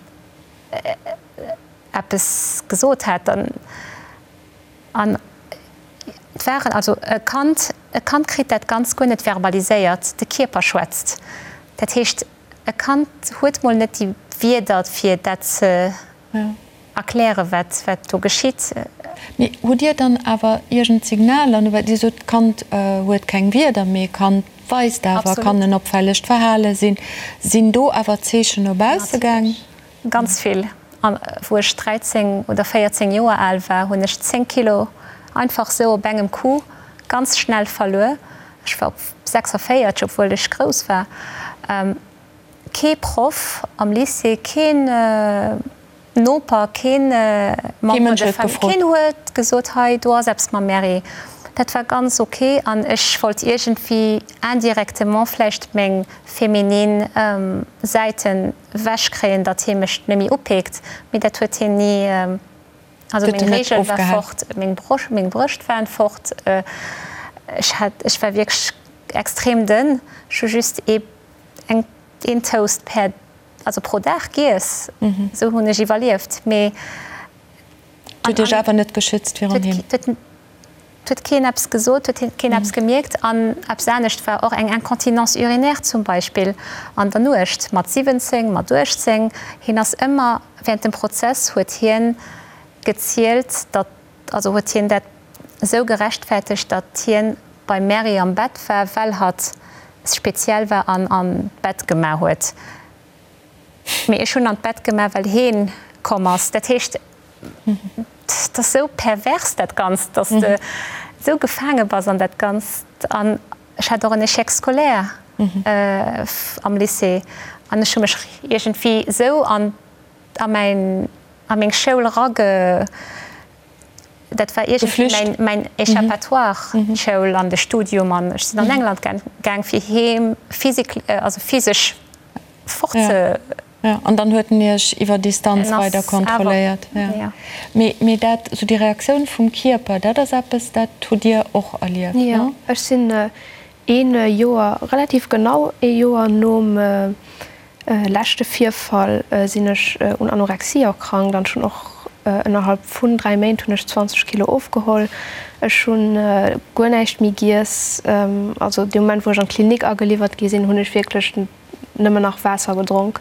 eppes gesot hätt, dann, an et waren, also e Kand, e Kand kritt dat Ganzt guer net verbaliséiert, de Kierper schwätzt. Dat heescht, e Kand huet mol net déi Wierder fir dat ze erklären, wat, wat do geschitt. Mee hutt Dir dann awer iergend Signaler, no well Dir sot, d'Kand huet keng Wierder, mee e Kand weist awer, kann en opfällegt Verhale sinn, sinn do awer Zeechen no bausse gaang? Ganz vill. An wou ech 13 oder 14 Joer al war, hunn ech 10 Kilo einfach sou op engem Coup ganz schnell verluer. Ech war op 46, obwuel ech grouss war. Kee Proff am Lycée, keen Noper, keen Member de famille, keen huet gesot, hei do ass eppes mam Mary. Dat war ganz ok an ech wollt iergendwéi indirectement vläicht meng feminin Säiten Wech kréien, datt hie mech nemmi upeekt, mee dat huet hien ni. Also meng Reegel war fort, meng Broscht, meng Brëscht waren fort, ech hat, ech war wierklech extrem dënn. Ech hu just ee, eng, een Toast per, also pro Dag giess, esou hunn ech iwwerlieft, mee. Huet Iech awer net geschützt virun him? Et huet keen eppes gesot, huet keen eppes gemierkt. An eppes anescht war och eng Incontinence urinaire zum Beispill an der Nuecht mat 17, mat 18. Hien ass ëmmer, während dem Prozess huet hien gezielt, datt, also huet hien dat esou gerechtfertegt, datt hien beim Mary am Bett war, well hatt speziell war an an d'Bett gemaach huet. Mee ech hunn an d'Bett gemaach, well heen komm ass. Dat heescht, et ass esou pervers dat Ganzt, dass de esou gefaange bass an dat Ganzt. An ech hat och en Échec scolaire am Lycée an ech hu mech iergendwéi esou an a mäin a meng Schoul erage. Dat war iergendwéi mäin mäin Échappatoire, d'Schoul an de Studium. An ech sinn an England gaang fir heem physique, also physesch fort ze. Jo, an dann huet en Iech iwwer Distanz weider kontrolléiert. Mee, mee dat, esou déi Reaktioun vum Kierper, dat ass eppes, dat hutt Dir och erlieft, ne? Jo, ech sinn een Joer, relativ genau ee Joer nom leschte Virfall sinn ech un Anorexie erkrankt an ech hunn och ënnerhalb vun 3 Méint hunn ech 20 Kilo ofgeholl. Ech hunn guer näischt méi giess. Also dee Moment wou ech an d'Klinik ageliwwert gi sinn, hunn ech wierklech nëmmen nach Waasser gedronk.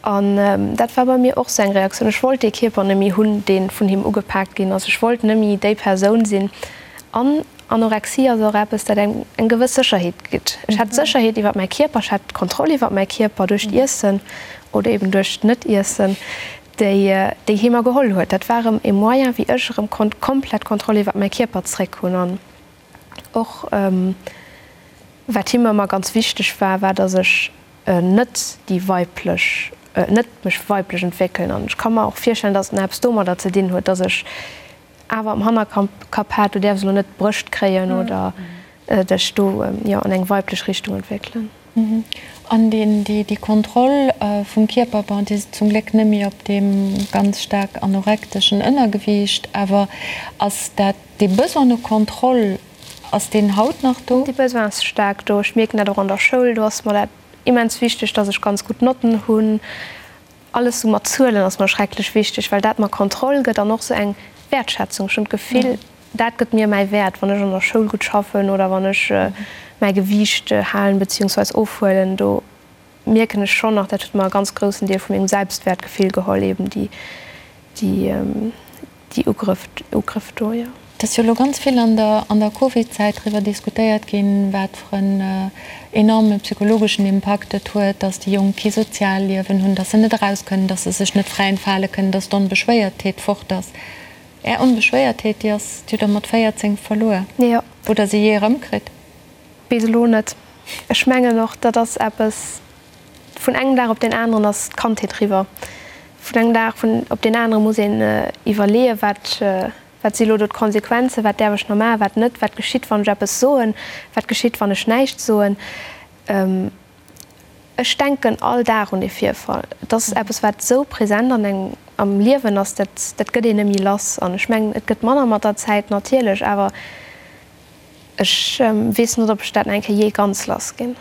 An dat war bei mir och sou eng Reaktioun. Ech wollt dee Kierper net méi hunn, dee vun him ugepaakt ginn ass. Ech wollt net méi déi Persoun sinn. An Anorexie ass och eppes, dat engem eng gewëss Sécherheet gitt. Ech hat Sécherheet iwwer mäi Kierper, ech hat d'Kontroll iwwer mäi Kierper duerch d'Iessen oder eben duerch d'Net-Iessen, déi déi hie mer geholl huet. Dat war erëm e Moyen, wéi ech erëm konnt komplett Kontroll iwwer mäi Kierper zréck hunn. An och wat him ëmmer ganz wichteg war, war, datt ech net déi weiblech, net mech weiblech entwéckelen. An ech ka mer och virstellen, datt et nach eppes domadder ze dinn huet, datt ech awer am Hannerkapp hat, du däerfs elo net d'Brëscht kréien oder dech do, jo, an eng weiblech Richtung entwéckelen. An déi Kontroll vum Kierper, bon, déi ass zum Gléck net méi op deem ganz staark anorekteschen Ënnergewiicht, awer ass dat dee Besoin no Kontroll? Ass deen haut nach do? Dee Besoin ass staark do. Ech mierken dat och an der Schoul. Do ass mer dat immens wichteg, dass ech ganz gutt Notten hunn. Alles sou mat Zuelen ass mer schrecklech wichteg, well dat mer Kontroll gëtt an och sou eng Wäertschätzung. Ech hunn d'Gefill, dat gëtt mir mäi Wäert, wann ech an der Schoul gutt schaffen oder wann ech mäi Gewiicht halen beziehungsweis ofhuelen. Do mierken ech schonn nach, dat huet mer e ganz groussen Deel vu mengem Selbstwäertgefill geholl, eben déi, déi, déi Ugrëff, Ugrëff do, jo. Et ass jo elo ganz vill an der, an der Covid-Zäit driwwer diskutéiert ginn, wat fir en enorme psychologeschen Impakt et huet, dass déi Jonk kee Sozialliewen hunn, dass se net eraus kënnen, dass se sech net fräi entfale kënnen, dass d'Onbeschwéiertheet fort ass. Är Onbeschwéiertheet, déi ass, déi hutt Der mat 14 verluer. Jo. Hutt Der se jee erëmkritt? Bis elo net. Ech mengen och, dat ass eppes, vun engem Dag op deen aneren ass d'Kandheet eriwwer. Vun engem Dag op deen anere muss een iwwerleeën, wat, wat si elo do d'Konsequenzen, wat däerf ech nach maachen, wat net, wat geschitt, wann ech eppes soen, wat geschitt, wann ech näischt soen. Ech denken all Dag un dee Virfall. Et ass eppes, wat esou present an engem am Liewen ass, dat, dat gëtt een net méi lass. An ech mengen, et gëtt manner mat der Zäit natierlech, awer Ech weess net, ob ech dat nach eng Kéier jee ganz lass ginn.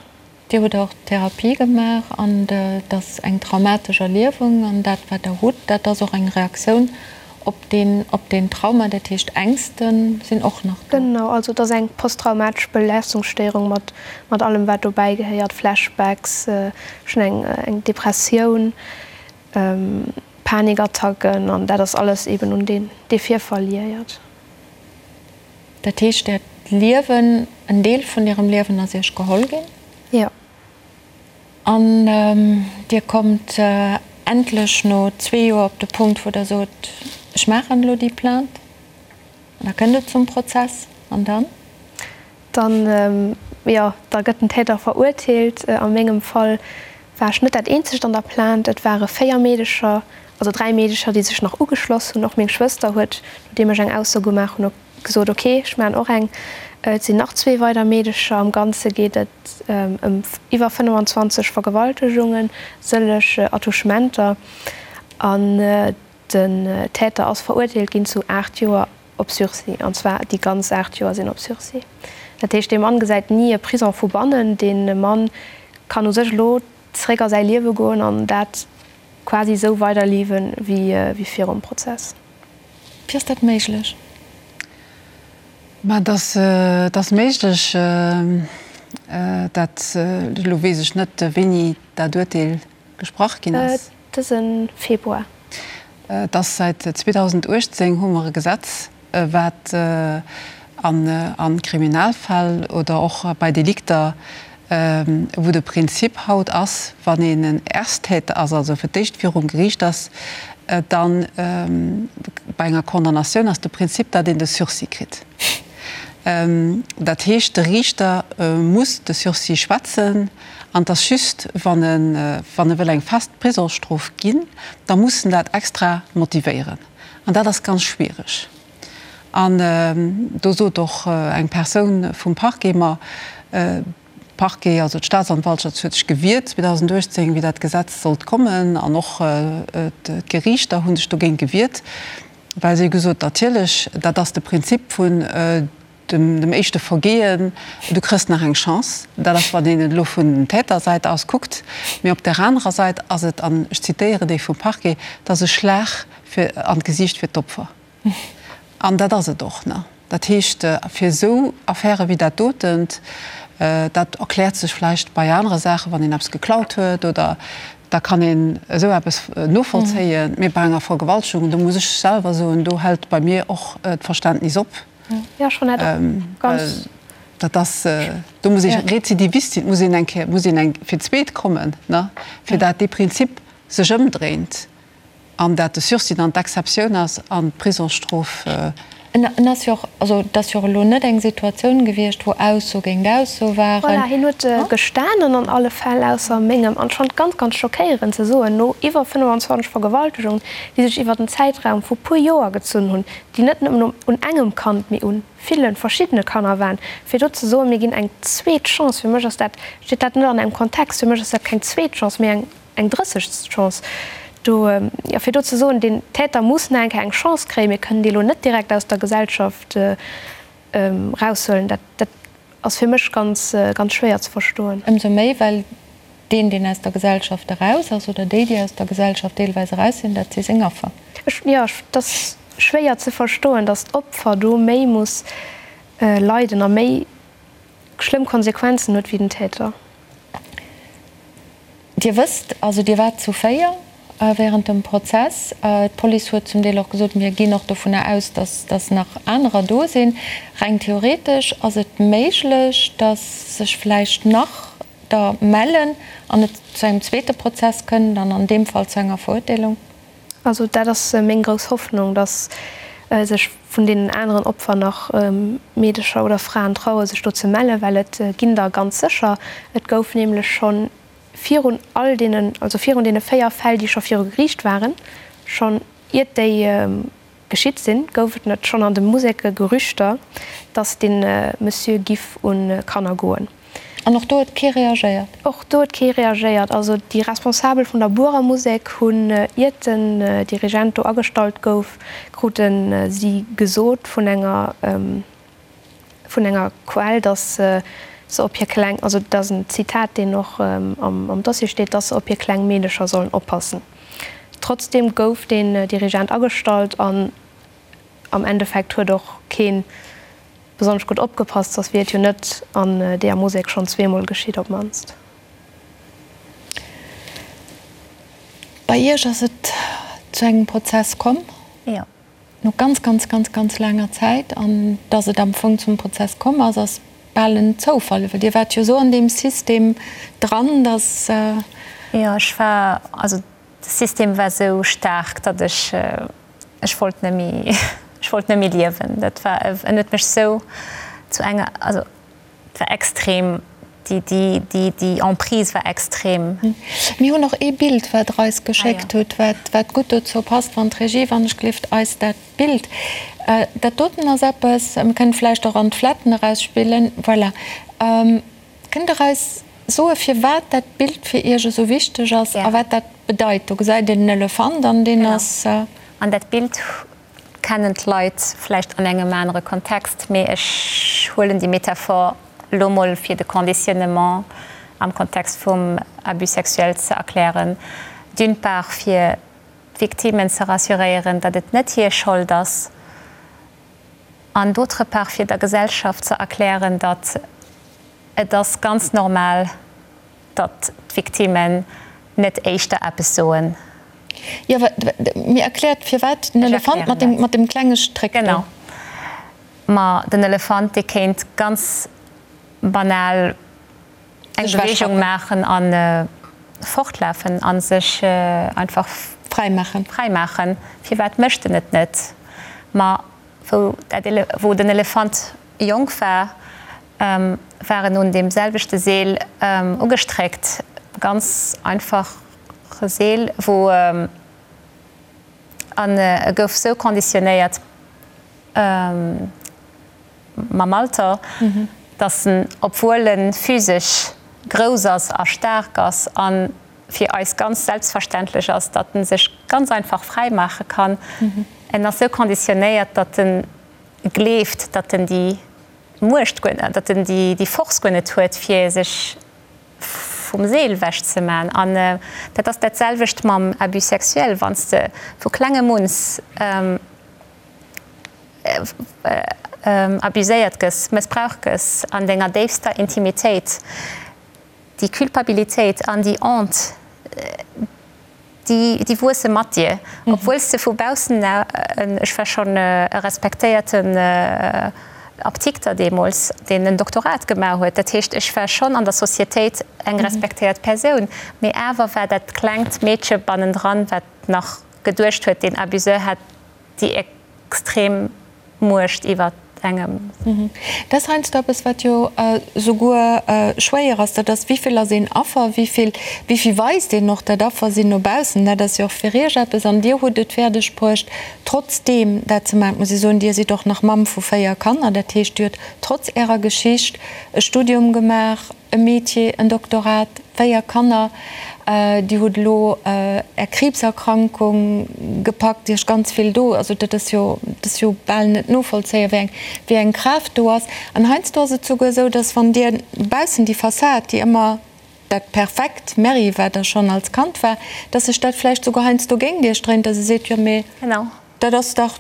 Dir hutt och Therapie gemaach an et ass eng traumatesch Erliewung an dat wat Der hutt, dat ass och eng Reaktioun op deen, op deen Trauma. Dat heescht Ängste sinn och nach do. Genau, also et ass eng posttraumatesch Belastungsstéierung mat, mat allem wat dobäi gehéiert, Flashbacks, ech hunn eng, eng Depressioun, Panikattacken an dat ass alles eben un deen, dee Virfall liéiert. Dat heescht, Äert Liewen, en Deel vun Ärem Liewen ass Iech geholl ginn? Jo. An Dir kommt endlech no zwee Joer op de Punkt, wou Der sot, ech maachen elo déi Plainte. An da kënnt et zum Prozess. An dann? Dann, jo, da gëtt den Täter verurteelt. A mengem Fall war ech net dat eenzegt an der Plainte. Et ware 4 Meedecher, also 3 Meedecher, déi sech nach ugeschloss hunn. Och meng Schwëster huet, nodeem ech eng Ausso gemaach hunn, gesot, ok, ech maachen och eng. Et sinn nach zwee weider Meedecher. Am Ganze geet et ëm iwwer 25 Vergewaltegungen, sëlleg Attouchementer. An den Täter ass verurteelt ginn zu 8 Joer op Sursis, an zwar déi ganz 8 Joer sinn op Sursis. Dat heescht, dee Mann gesäit ni e Prison vu bannen. Dee Mann kann u sech elo zeréck a säi Liewe goen an dat quasi esou weiderliewen, wéi virum Prozess. Wéi ass dat méiglech? Mä et ass, et ass méiglech, dat, elo weess ech net, wéini dat Urteel gesprach ginn ass. Dëse Februar. Et ass säit 2018 hu mer e Gesetz, wat a Kriminalfäll oder och bei Delikter, wou de Prinzip haut ass, wann een en Ersttäter ass, also fir d'éischt virum Geriicht ass, dann bei enger Condamnatioun ass de Prinzip, datt een de Sursis kritt. Dat heescht, de Riichter muss de Sursis schwätzen an et ass just, wann e wann e wëll eng fest Prisongsstrof ginn, da muss en dat extra motivéieren. An dat ass ganz schwiereg. An do sot och eng Persoun vum Parquet mer, Parquet, also d'Staatsanwaltschaft huet sech gewiert 2018, wéi dat Gesetz sollt kommen, an och d'Geriichter hu sech dogéint gewiert, well si hu gesot, natierlech, dat ass de Prinzip vun dem éischte Vergehen, du kriss nach eng Chance. Dat ass, wann een et elo vun den Tätersäit aus kuckt. Mee op där anerer Säit ass et, an ech zitéieren dee vum Parquet, et ass e Schlag fir an d'Gesiicht fir d'Opfer. An dat ass et och. Dat heescht, fir esou Affäre wéi dat dotent, dat erkläert sech vläicht bei anere Saachen, wann een eppes geklaut huet oder da kann een esou eppes novollzéien, mee bei enger Vergewaltegung, do muss ech selwer soen, do hält bei mir och d'Verständnis op. Well dat ass, do muss ee Rezidivist sinn, muss een eng Kéier, muss een eng fir d'zweet kommen, fir dat dee Prinzip sech ëmdréint. An dat de Sursis dann d'Exceptioun ass an d'Prisongsstrof. En ass jo och, also et ass jo och elo net eng Situatioun gewiescht, wou Ausso géint Ausso waren. Voilà, hien huet gestanen an alle Fäll, ausser mengem. An ech fand et ganz, ganz schockéierend ze soen, no iwwer 25 Vergewaltegungen, déi sech iwwer en Zäitraum vu puer Joer gezunn hunn, déi net nëmmen un engem Kand, mee u ville verschiddene Kanner waren, fir do ze soen, mir ginn eng zweet Chance, fir mech ass dat, steet dat net an engem Kontext, fir mech ass dat keng zweet Chance, mee eng. Eng drëssegst Chance do, jo, fir do ze soen, den Täter muss nach eng Kéier eng Chance kréien, mir kënnen dee lo net direkt aus der Gesellschaft. eraushuelen. Dat, dat ass fir mech ganz, ganz schwéier ze verstoen. Ëmsou méi, well deen, deen aus der Gesellschaft eraus ass, oder déi, déi aus der Gesellschaft deelweis eraus sinn, dat si seng Affer. Ech, jo, et ass schwéier ze verstoen, datt d'Opfer do méi muss leiden a méi schlëmm Konsequenzen huet wéi den Täter. Dir wësst, also Dir waart zu 4 während dem Prozess. D'Police huet zum Deel och gesot, mir ginn och dovunner aus, dass dass nach anerer do sinn. Reng theoretesch ass et méiglech, dass sech vläicht nach der mellen an et zu engem zweete Prozess kënnt an an deem Fall zu enger Verurteelung. Also dat ass meng grouss Hoffnung, dass sech vun deenen aneren Opfer nach Meedecher oder Fraen traue sech do ze mellen, well et ginn der ganz sécher. Et gouf nämlech scho virun all deenen, also virun deene 4 Fäll, déi scho viru Geriicht waren, schonn iert déi geschitt sinn, gouf et net schonn an de Museke Gerüchter, dass dee Monsieur giff un Kanner goen. An och do huet kee reagéiert? Och do huet kee reagéiert. Also déi Responsabel vun der Buerer Musek hunn, iert den Dirigent do agestallt gouf, krute si gesot vun enger vun enger Quell, dass se op hir kleng, also dat ass en Zitat, deen och am Dossier steet, dass se op hir kleng Meedecher sollen oppassen. Trotzdeem gouf deen Dirigent agestallt an am Endeffekt huet och kee besonnesch gutt opgepasst, soss wier et jo net an deeër Musek schonn zweemol geschitt op d'mannst. Bei Iech ass et zu engem Prozess komm? Jo. No ganz, ganz, ganz, ganz laanger Zäit. An dass et am Fong zum Prozess komm ass, ass bal en Zoufall, well Dir waart jo esou an deem System dran, dass. Jo, ech war, also de System war esou staark, datt ech, ech wollt net méi, ech wollt net méi liewen. Dat war, en huet mech esou zu enger, also et war extrem, déi, déi, déi, déi Emprise war extrem. Mir hunn och ee Bild, wat Der eis geschéckt hutt, wat, wat gutt dozou passt, wann d'Regie, wann ech gelift, eis dat Bild, dat doten ass eppes, mir kënnen vläicht och an d'Fletten erausspillen, voilà. Kënnt Der eis soe firwat dat Bild fir Iech esou wichteg ass a wat dat bedeit? Do gesäit een en Elefant an deen ass. An dat Bild kennen d'Leit vläicht an engem anere Kontext, mee ech huelen déi Metaphor elo mol fir de Conditionnement am Kontext vum Abus sexuel ze erklären, d'une part fir d'Victimen ze rassuréieren, datt et net hir Schold ass, an d'autre part fir der Gesellschaft ze erklären, datt et ass ganz normal, datt d'Victimen net éischter eppes soen. Jo, mir erkläert firwat den Elefant mat dem, mat dem klenge Stréck do. Genau. Ma den Elefant, dee kéint ganz banal eng Beweegung maachen a fortlafen a sech einfach fräi maachen. Fräi maachen. Firwat mécht en et net? Ma wou dat, wou den Elefant jonk war, war en un deem selwechte Seel ugestréckt, ganz einfache Seel, wou, an e gouf sou conditionnéiert mam Alter, datt en, obwuel e physesch grouss ass a staark ass a fir eis ganz selbstverständlech ass, datt en sech ganz einfach fräi maache kann, en ass sou conditionnéiert, datt en gleeft, datt en déi Muecht guer, datt en déi Force guer net huet, fir sech vum Seel ewech ze man. An dat ass dat selwecht mam Abus sexuel, wann s de vu klengem uns abuséiert gëss, mëssbraucht gëss an denger déifster Intimitéit, déi Culpabilitéit an déi Honte, déi wuesse mat dir, obwuel s de vu baussen, ech war schonn e respektéierten Aptikter deemools, deen en Doktorat gemaach huet, dat heescht, ech war schonn an der Societéit eng respektéiert Persoun, mee awer war dat klengt Meedche bannendran, wat nach geduecht huet, deen Abuseur hätt déi extrem Muecht iwwer engem. Dat ass heiansdo eppes, wat jo souguer schwéier ass, dat ass, wéi vill ass een Affer, wéi vill, wéi vill weist een och dat Affer sinn no baussen. Dat ass jo och fir Iech eppes. An Dir hutt et fäerdeg bruecht, trotzdeem dat ze maachen. Et muss ee soen, Dir sidd och nach Mamm vu 4 Kanner. Dat heescht, Dir hutt trotz Ärer Geschicht e Studium gemaach. e Métier, en Doktorat, 4 Kanner, Dir hutt elo Är Kriibserkrankung gepackt, Iech ganz vill do, also dat ass jo, dat ass jo bal net novollzéien, wéi eng, wéi eng Kraaft do ass. An heiansdo ass et souguer esou, dass wann Dir baussen déi Fassad, déi ëmmer dat perfekt Merri, wat Der schonn als Kand war, dass sech dat vläicht souguer heiansdo géint Iech dréint, dass e seet, jo mee dat ass dach,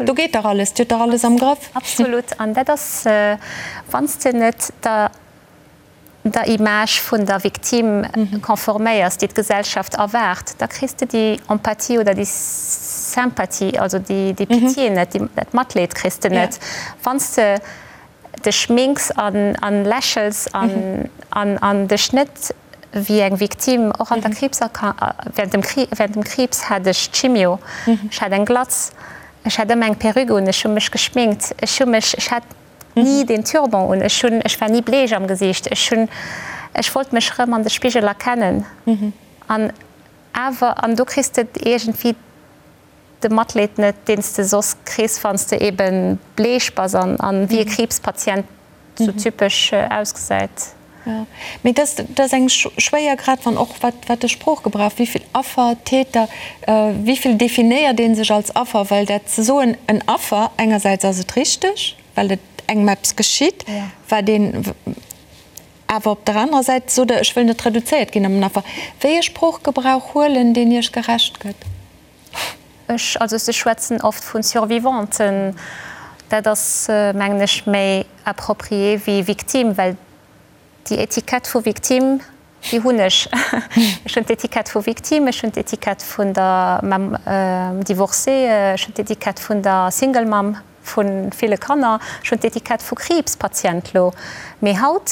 do geet dach alles, Dir hutt dach alles am Grëff. Absolut. An dat ass, wann s de net der der Image vun der Victime conforméiers, déi d'Gesellschaft erwaart, da kriss de déi Empathie oder déi Sympathie, also déi Pitié net, dat Matleed kriss de net. Wann s de dech schminks an lächels an dech net wéi eng Victime, och an der Kriibserkrank, während dem Kriibs hat ech Chimio, ech hat eng Glatz, ech hat ëmmer eng Perruque un, ech hu mech geschminkt, ech hu mech, ech hat ni den Turban un, ech hunn, ech war ni bleech am Gesiicht, ech hunn, ech wollt mech rëm an de Spigel erkennen an awer, an do kriss de iergendwéi de Matleed net, deen s de soss kriss, wann s de ebe bleech bass an wéi e Kriibspatient sou typesch ausgesäit. Jo, mee dat ass eng schwéier, grad wann och wat wat de Sproochgebrauch, wéi vill Affer, Täter, wéi vill definéiert ee sech als Affer, well dat ze soen, en Affer, engersäits ass et richteg, well et engem eppes geschitt, wat een awer op der anerer Säit sot Der, ech wëll net reduzéiert ginn op en Affer. Wéi e Sproochgebrauch huelen, deen Iech gerecht gëtt? Ech, also se schwätzen oft vu Survivanten, dat ass mengen ech méi approprié wéi Victime, well déi Etikett vu Victime, déi hunn ech. Ech hunn d'Etikett vu Victime, ech hunn d'Etikett vun der Mamm divorcée, ech hunn d'Etikett vun der Single Mamm vu ville Kanner, ech hunn d'Etikett vu Kriibspatient lo. Mee haut,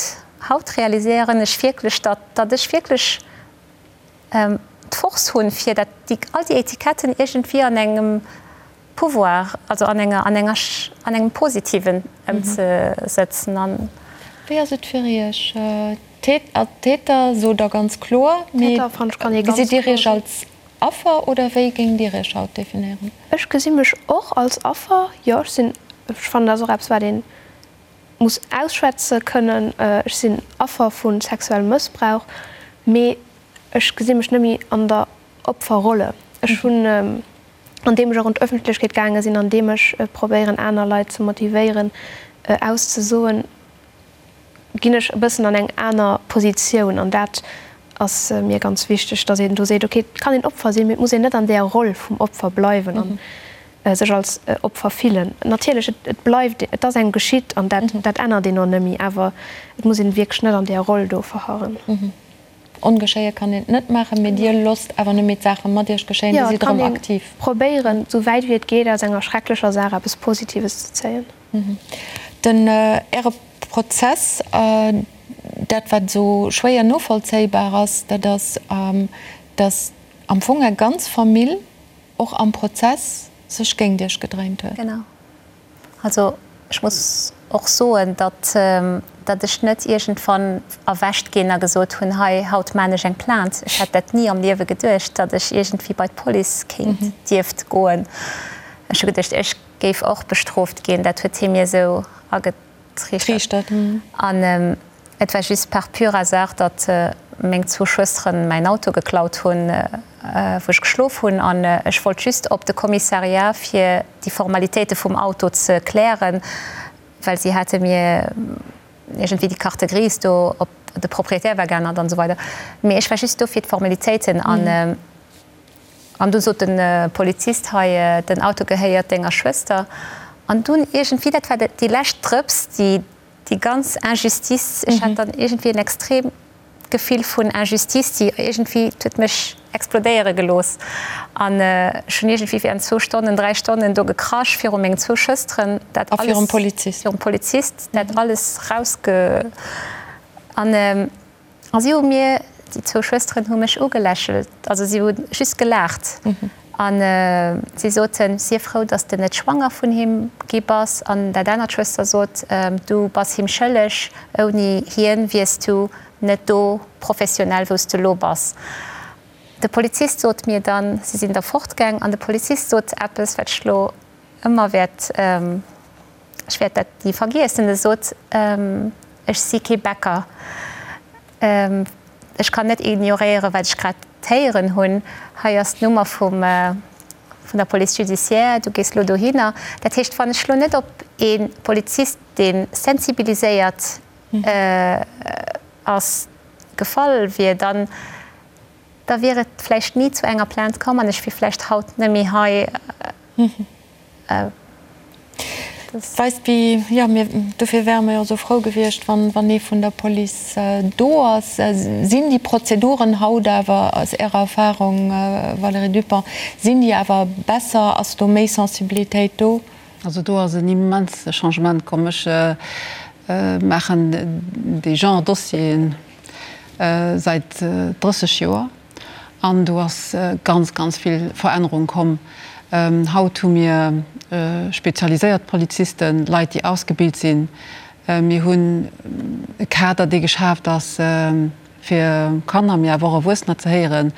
haut realiséieren ech wierklech, datt, datt ech wierklech d'Force hunn, fir dat, déi, all déi Etiketten iergendwéi an engem Pouvoir, also an enger, an enger, an engem Positiven ëmzesëtzen an. Wéi ass et fir Iech? Täter sot Der ganz kloer, mee gesitt Dir Iech als Affer oder wéi géingt Dir Iech haut definéieren? Ech gesi mech och als Affer, jo. Ech sinn, ech fannen, dat ass och eppes, wat ee muss ausschwätze kënnen. Ech sinn Affer vu sexuellem Mëssbrauch, mee ech gesi mech net méi an der Opferrolle. Ech hunn, andeem ech och an d'Ëffentlechkeet gaange sinn, andeem ech probéieren aner Leit ze motivéieren auszesoen, ginn ech e bëssen an eng aner Positioun. An dat ass mir ganz wichteg, datt een do seet, okay, et kann een Opfer sinn, mee et muss een net an där Roll vum Opfer bleiwen an sech als Opfer fillen. Natierlech, et bleift, et ass engem geschitt an dat dat ännert een och net méi, awer et muss een wierklech net an där Roll do verharren. Ongeschéie kann een et net maachen, mee Dir losst awer net méi d'Saache mat Iech geschéien, Dir sidd erëm aktiv. Jo, et kann ee probéieren, esou wäit wéi et geet, aus enger schrecklecher Saach eppes Positives ze zéien. Den Äre Prozess, dat wat esou schwéier novollzéibar ass, dat ass, datt am Fong Är ganz Famill och am Prozess sech géint Iech gedréint huet. Genau. Also ech muss och soen, datt datt ech net iergendwann erwächt ginn a gesot hunn, hei haut maan ech eng Plainte. Ech hätt dat ni am Liewe geduecht, datt ech iergendwéi bei d'Police kéint, dierft goen. Ech hu geduecht, ech géif och bestrooft ginn. Dat huet hie mir esou agetriichtert. An et war just par pur hasard, datt meng zwou Schwësteren mäin Auto geklaut hunn, wou ech geschlof hunn. An ech wollt just op de Kommissariat, fir déi Formalitéite vum Auto ze klären, well si hate mir iergendwéi déi Carte grise do op, de Propriétaire war geännert an esou weider. Mee ech war just do fir d'Formalitéiten. An An du sot de Polizist, Hei, den Auto gehéiert denger Schwëster. An dunn iergendwéi, dat war déi lescht Drëps, déi déi ganz Injustice, ech hat dann iergendwéi en extreemt Gefill vun Injustice, déi iergendwéi, et huet mech explodéiere gelooss. An ech hunn iergendwéi während zwou Stonnen, dräi Stonnen do gekrasch viru mengen zwou Schwësteren, dat alles. A virum Polizist. Virum Polizist, dat alles rausge. An. A si hu mir, déi zwou Schwësteren hu mech ugelächelt, also si hu just gelaacht a si soten, Sief frou, datt s de net schwanger vun him gi bass. An dat anert Schwëster sot, Du bass him schëlleg, ouni hien wiers du net do professionell, wou s de elo bass. De Polizist sot mir dann, si sinn da fortgaang an de Polizist sot eppes, wat ech elo ëmmer wäert, ech wäert dat ni vergiessen, e sot, Ech si kee Bäcker. Ech kann net ignoréieren, wat ech grad héieren hunn. Hei ass d'Nummer vum, vun der Police judiciaire, du gees elo dohinner. Dat heescht, wann ech elo net op ee Polizist, dee sensibiliséiert ass, gefall wier, dann, da wier et vläicht ni zu enger Plainte komm an ech wier vläicht haut net méi hei. Weist wéi, jo, mir, dofir wäre mer jo esou frou gewiescht, wann, wann ee vun der Police do ass. Sinn déi Prozeduren haut awer, aus Ärer Erfahrung, Valérie Dupong, sinn déi awer besser? Ass do méi Sensibilitéit do? Also do ass en immense Changement komm. Ech maachen dee Genre Dossieren säit 30 Joer. An do ass ganz, ganz vill Verännerung komm. Haut hu mir spezialiséiert Polizisten, Leit, déi ausgebilt sinn. Mir hunn e Kader, dee geschaaft ass, fir Kanner, mee awer och Erwuessener ze héieren.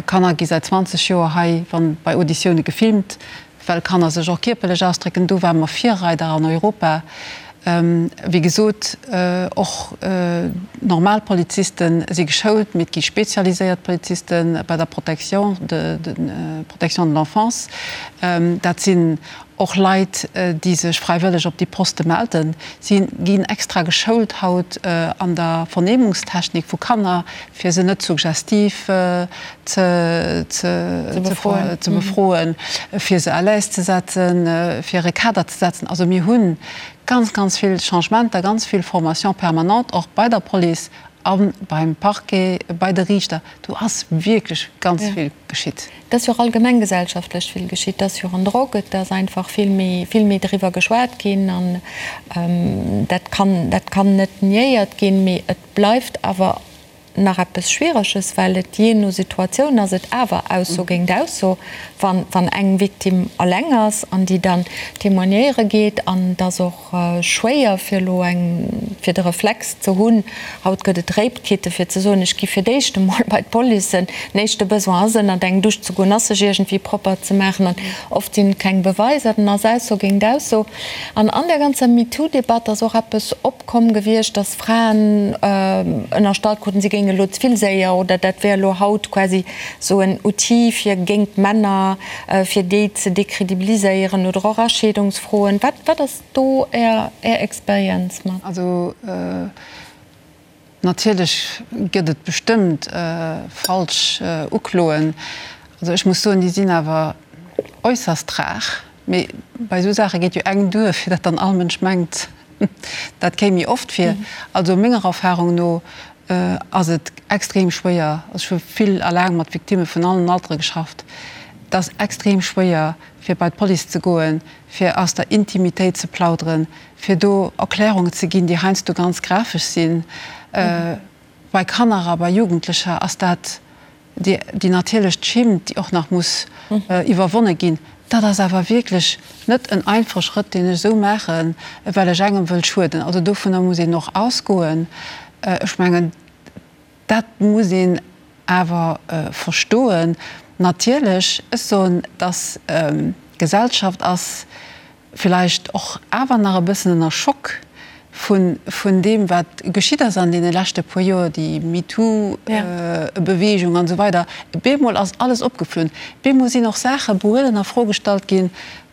Kanner gi säit 20 Joer hei bei Auditioune gefilmt. Well Kanner sech och kierperlech ausdrécken, do ware mer Virreider an Europa. Wéi gesot, och normal Poliziste si geschoult, mee et gi spezialiséiert Poliziste bei der Protection de, Protection de l'enfance. Dat sinn och Leit, déi sech fräiwëlleg op déi Poste melden. Si ginn extra geschoult haut an der Vernehmungstechnik vu Kanner, fir se net suggestiv ze befroen, fir se à l'aise ze setzen, fir e Kader ze setzen. Also mir hu ganz, ganz vill Changementer, ganz vill Formation permanente och bei der Police a beim Parquet, bei de Riichter. Do ass wierklech ganz vill geschitt. Et ass jo och allgemeng gesellschaftlech vill geschitt. Et ass jo och an Drock, et ass einfach vill méi, vill méi driwwer geschwat ginn an dat kann, dat kann net niéiert ginn. Mee et bleift awer nach eppes Schwiereges, well et jee no Situatioun ass et awer Ausso géint Ausso, wann, wann eng Victime alleng ass an déi dann témoignéiere geet. An et ass och schwéier fir elo eng, fir de Reflex ze hunn, haut gëtt et Rape-Kitten, fir ze soen, ech gi fir d'éischt emol bei d'Police. Den éischte Besoin ass ënnert eng Dusch ze goen, ass sech iergendwéi propper ze maachen an oft sinn et keng Beweiser, dann ass Ausso géint Ausso. An an där ganzer MeToo-Debatt ass och eppes opkomm gewiescht, dass Fraen ënnerstallt kruten, si géinge elo ze vill séier oder dat wär elo haut quasi esou en Outil fir géint d'Männer, fir déi ze décredibiliséieren oder och a Scheedungsfroen. Wat, wat ass do Är, Är Experienz mat? Also natierlech gëtt et bestëmmt falsch Ukloen. Also ech muss soen, déi sinn awer äusserst rar. Mee bei esou Saache geet jo eng duer, fir datt dann all Mënsch mengt, dat kéim méi oft vir. Also menger Erfahrung no ass et extrem schwéier, also ech hu vill a laang mat Victimme vun allen Altere geschafft, et ass extrem schwéier fir bei d'Police ze goen, fir aus der Intimitéit ze plauderen, fir do Erklärungen ze ginn, déi heiansdo ganz grafesch sinn. Bei Kanner a bei Jugendlecher ass dat déi natierlech d'Schimmt, déi och nach muss iwwerwonne ginn. Dat ass awer wierklech net en einfache Schrëtt, deen ech esou maachen, well ech engem wëll schueden. Also dovunner muss een och ausgoen. Ech mengen, dat muss een awer verstoen. Natierlech, ech soen, dass d'Gesellschaft ass villäicht och awer nach e bëssen ënner Schock vun vun deem wat geschitt ass an deene leschte puer Joer, déi MeToo-Beweegung an esou weider. Bemol ass alles opgeflunn. Bemol sinn och Saache behuelen a Fro gestallt ginn,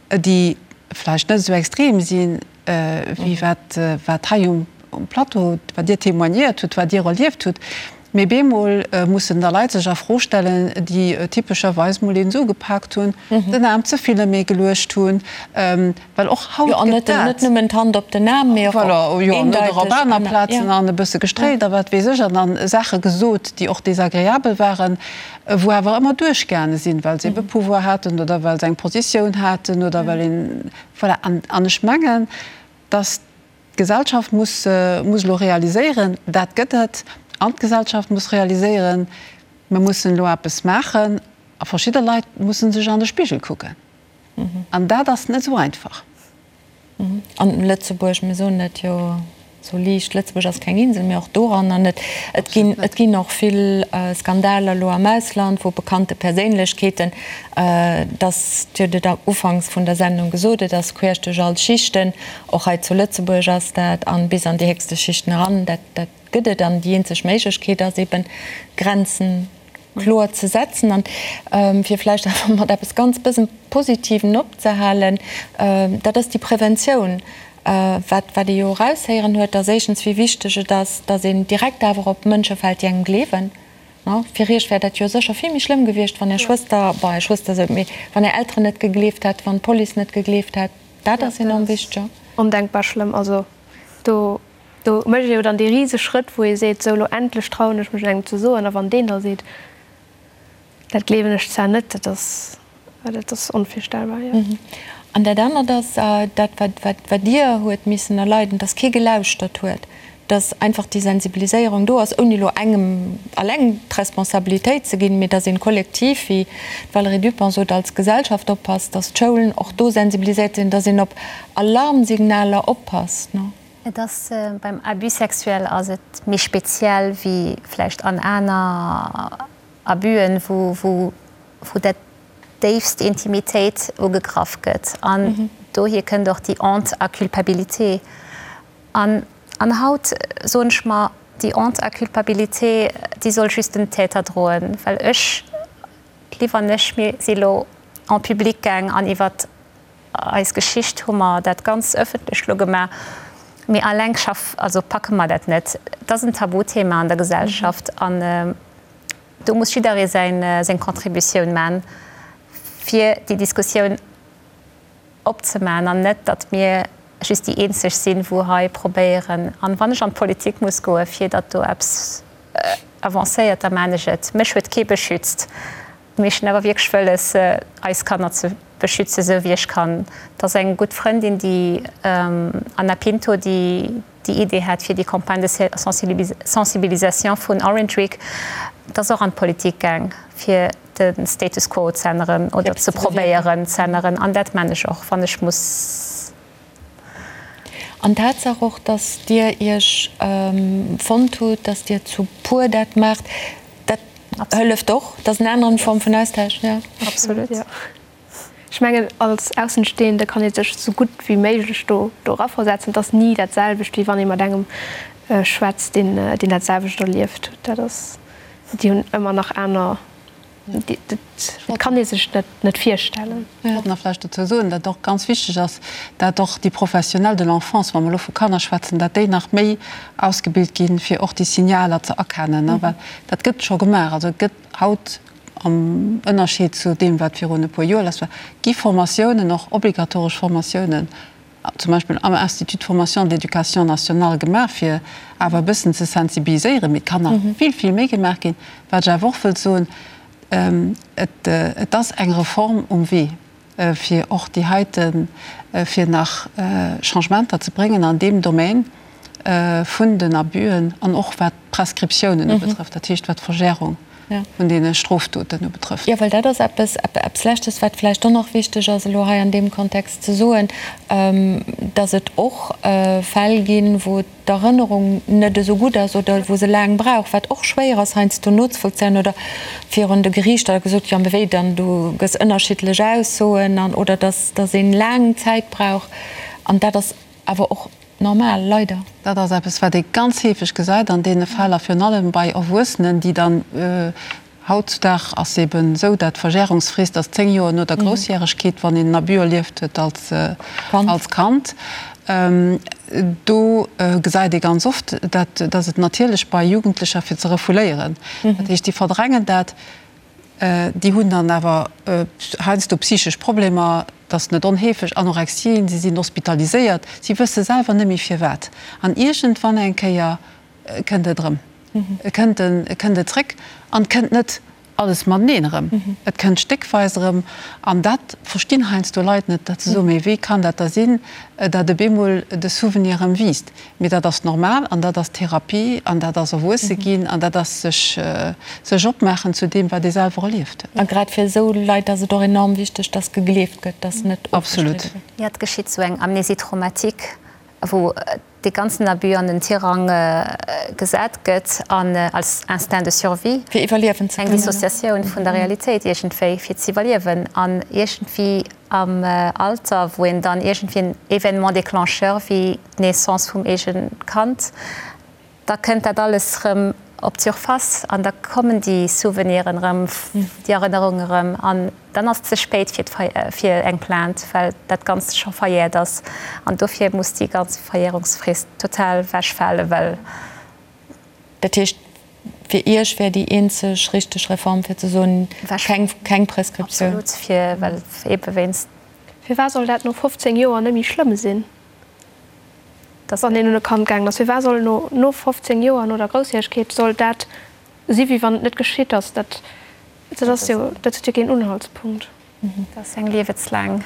déi vläicht net esou extrem sinn, wéi wat wat hei um Plateau, wat Dir témoignéiert hutt, wat Dir erlieft hutt. Mee bemol mussen da Leit sech a Fro stellen, déi typescherweis mol een esou gepaakt hunn, den Aarm ze vill ëm ee geluecht hunn, well och haut gëtt dat. Jo, an net nëmmen d'Hand op den Aarm, mee och eendeiteg. Voilà, op aner Plazen an e bësse gestréilt a wat weess ech, an dann Saache gesot, déi och desagreabel waren, wou awer ëmmer duerchgaange sinn, well se ebe Pouvoir haten oder well se eng Positioun haten oder well een, voilà. An ech mengen, dass D'Gesellschaft muss muss elo realiséieren, dat gëtt et, an d'Gesellschaft muss realiséieren, mir mussen elo eppes maachen a verschidde Leit musse sech an de Spigel kucken. An dat ass net esou einfach. An Lëtzebuerg, mir soen dat jo esou liicht, Lëtzebuerg ass keng Insel, mee och doranner net. Et ginn, et ginn och vill Skandaler elo am Ausland, wou bekannte Perséinlechkeeten, dass, Dir hutt et ufanks vun der Sendung gesot, et ass queesch duerch all Schichten, Och hei zu Lëtzebuerg ass dat, an bis an déi héchste Schichten eran, dat, dat. gëtt et. An déi eenzeg Méiglechkeet ass eben, Grenzen kloer ze setzen. An fir vläicht awer mat eppes ganz bëssen Positiven opzehalen, dat ass déi Preventioun. Wat wat ee jo eraushéieren huet, ass éischtens, wéi wichteg et ass, datt een direkt awer op Mënsche fält, déi engem gleewen. Fir Iech wär dat jo sécher vill méi schlëmm gewiescht, wann Är Schwëster, bon, Är Schwëster esou, mee wann Är Elteren net gegleeft hätt, wann d'Police net gegleeft hätt. Dat ass enorm wichteg. Ondenkbar schlëmm. Also do do mécht ee jo dann dee rise Schrëtt, wou ee seet, sou elo endlech trauen ech mech et engem ze soen. A wann deen da seet, Dat gleewen ech zwar net, dat ass, dat ass onvirstellbar, jo. An dat anert ass dat, wat, wat, wat Dir huet missen erleiden, dass kee gelauschtert huet, dass einfach déi Sensibiliséierung do ass, ouni elo engem alleng d'Responsabilitéit ze ginn, mee dass een kollektiv, wéi d'Valérie Dupong sot, als Gesellschaft oppasst, dass d'Schoulen och do sensibiliséiert sinn, dass een op Alarmsignaler oppasst. Et ass, beim Abus sexuel ass et méi speziell wéi vläicht an aner Abus'en, wou, wou, wou dat déifst Intimitéit ugegraff gëtt. An dohier kënnt och déi Honte à culpabilité. An, an haut soen ech mer, déi Honte à culpabilité, déi soll just den Täter droen, well ech, d'Liv an ech, mir si lo en public gaang an iwwert Eis Geschicht hu mer dat ganz ëffentlech lo gemaach, mee alleng schaff, also packe mer dat net. Et ass en Tabuthema an der Gesellschaft an do muss jidderee säin, seng Contributioun man, fir déi Diskussioun opzeman an net, datt mir just déi eenzeg sinn, wou hei probéieren. An wann ech an d'Politik muss goen, fir datt do eppes avancéiert, da man ech et. Mech huet kee beschützt. Mee ech hunn awer wierklech wëlles, eis Kanner ze beschützen, esou wéi ech kann. Et ass eng gutt Frëndin, déi Anna Pinto, déi déi Idee hat fir déi Campagne de sensibilisation vun Orange Week. Et ass och an d'Politik gaang, fir de Status quo z'änneren oder ze probéieren z'änneren. An dat man ech och, wann ech muss. An d'Tatsaach och, dass Dir Iech fonnt hutt, dass Dir zu puer dat maacht, dat hëlleft och. Dat ass en aneren Form vun Austausch, jo. Absolut, jo. Ech mengen, als Aussenstehende kann ee sech esou gutt wéi méiglech do eraversetzen. Et ass ni dat selwecht, wéi wann ee mat engem schwätzt, deen dat selwecht erlieft huet. Dat ass, déi hunn ëmmer nach aner. Dat kann ee sech net virstellen. Ech wollt nach vläicht dozou soen, datt och ganz wichteg ass, dat och déi Professionnels de l'enfance, wa mer elo vu Kanner schwätzen, dat déi nach méi ausgebilt ginn, fir och déi Signaler ze erkennen, well dat gëtt scho gemaach. Also et gëtt haut, am Ënnerscheed zu deem, wat virun e puer Joer lass war, gi Formatiounen, och obligatoresch Formatiounen, zum Beispill am Institut de formation de l'éducation nationale gemaach, fir awer e bëssen ze sensibiliséieren, mee et kann nach vill, vill méi gemaach ginn. Wat ech awer och wëllt soen, Et ass eng Reform um Wee, fir och déi heiten, fir nach Changementer ze bréngen an deem Domaine vun den Abüen an och wat d'Prescriptiounen ubetrëfft, dat heescht wat d'Verjährung vun deene Strofdoten ubetrëfft. Jo, well dat ass eppes, eppes Leschtes, wat vläicht och nach wichteg ass elo hei an deem Kontext ze soen, dass et och Fäll ginn, wou d'Erënnerung net esou gutt ass oder wou se laang brauch, wat och schwéier ass heiansdo nozevollzéien oder virun de Geriichter da gesot, jo, mee wéi dann, du gëss ënnerschiddlech Aussoen an oder dass, dass een laang Zäit brauch an dat ass awer och normal, leider. Dat ass eppes, wat ee ganz heefeg gesäit an deene Fäll a virun allem bei Erwuessenen, déi dann, hautzudag ass eben esou, dat d'Verjärungsfrist ass 10 Joer no der Groussjäregkeet, wann een en Abus erlieft huet als Kand. Do gesäit ee ganz oft, dat dass et natierlech bei Jugendlecher fir ze refouléieren, dat heescht, déi verdrängen dat, Déi hunn dann awer heiansdo psychesch Problemer, dat ass net onheefeg, Anorexien, si sinn hospitaliséiert, si wësse selwer net méi firwat. An iergendwann eng Kéier kënnt et erëm, et kënnt et kënnt et zréck an et kënnt net alles mateneen erëm, et kënnt stéckweis erëm. An dat verstinn heiansdo Leit net, datt se soen, mee wéi kann dat da sinn, datt op eemol de Souvenir erëm wiisst. Mee dat ass normal an dat ass Therapie an dat ass erwuesse ginn an dat ass sech sech opmaachen zu deem, wat ee selwer erlieft huet. A grad fir esou Leit ass et och enorm wichteg, dass gegleeft gëtt, dass net ofgestridde gëtt. Jo, et geschitt sou eng Amnésie traumatique, wou dee ganzen Abus an den Tirang gesat gëtt an als Instinct de survie, Fir iwwerliewen ze eng kënnen. Dissociatioun vun der Realitéit iergendwéi, fir z'iwwerliewen an iergendwéi am Alter, wou een dann iergendwéi en Événement déclencheur wéi d'Naissance vum eegene Kand. Da kënnt dat alles rëm op d'Surface an da kommen déi Souveniren erëm, déi Erënnerungen erëm an dann ass et ze spéit fir fir eng Plainte, well dat Ganzt scho verjäert ass. An dofir muss déi ganz Verjährungsfrist total wechfalen, well. Dat heescht, fir Iech wär déi eenzeg richteg Reform fir ze soen, keng Prescriptioun? Absolut, fir, well eebe wéinst. Firwat soll dat no 15 Joer net méi schlëmm sinn? Wann een un e Kand gaangen ass, firwat soll no no 15 Joer, no der Groussjäregkeet, soll dat si wéi wann et net geschitt ass? Dat dat ass jo, dat huet jo keen Unhaltspunkt. Dat ass eng liewenslaang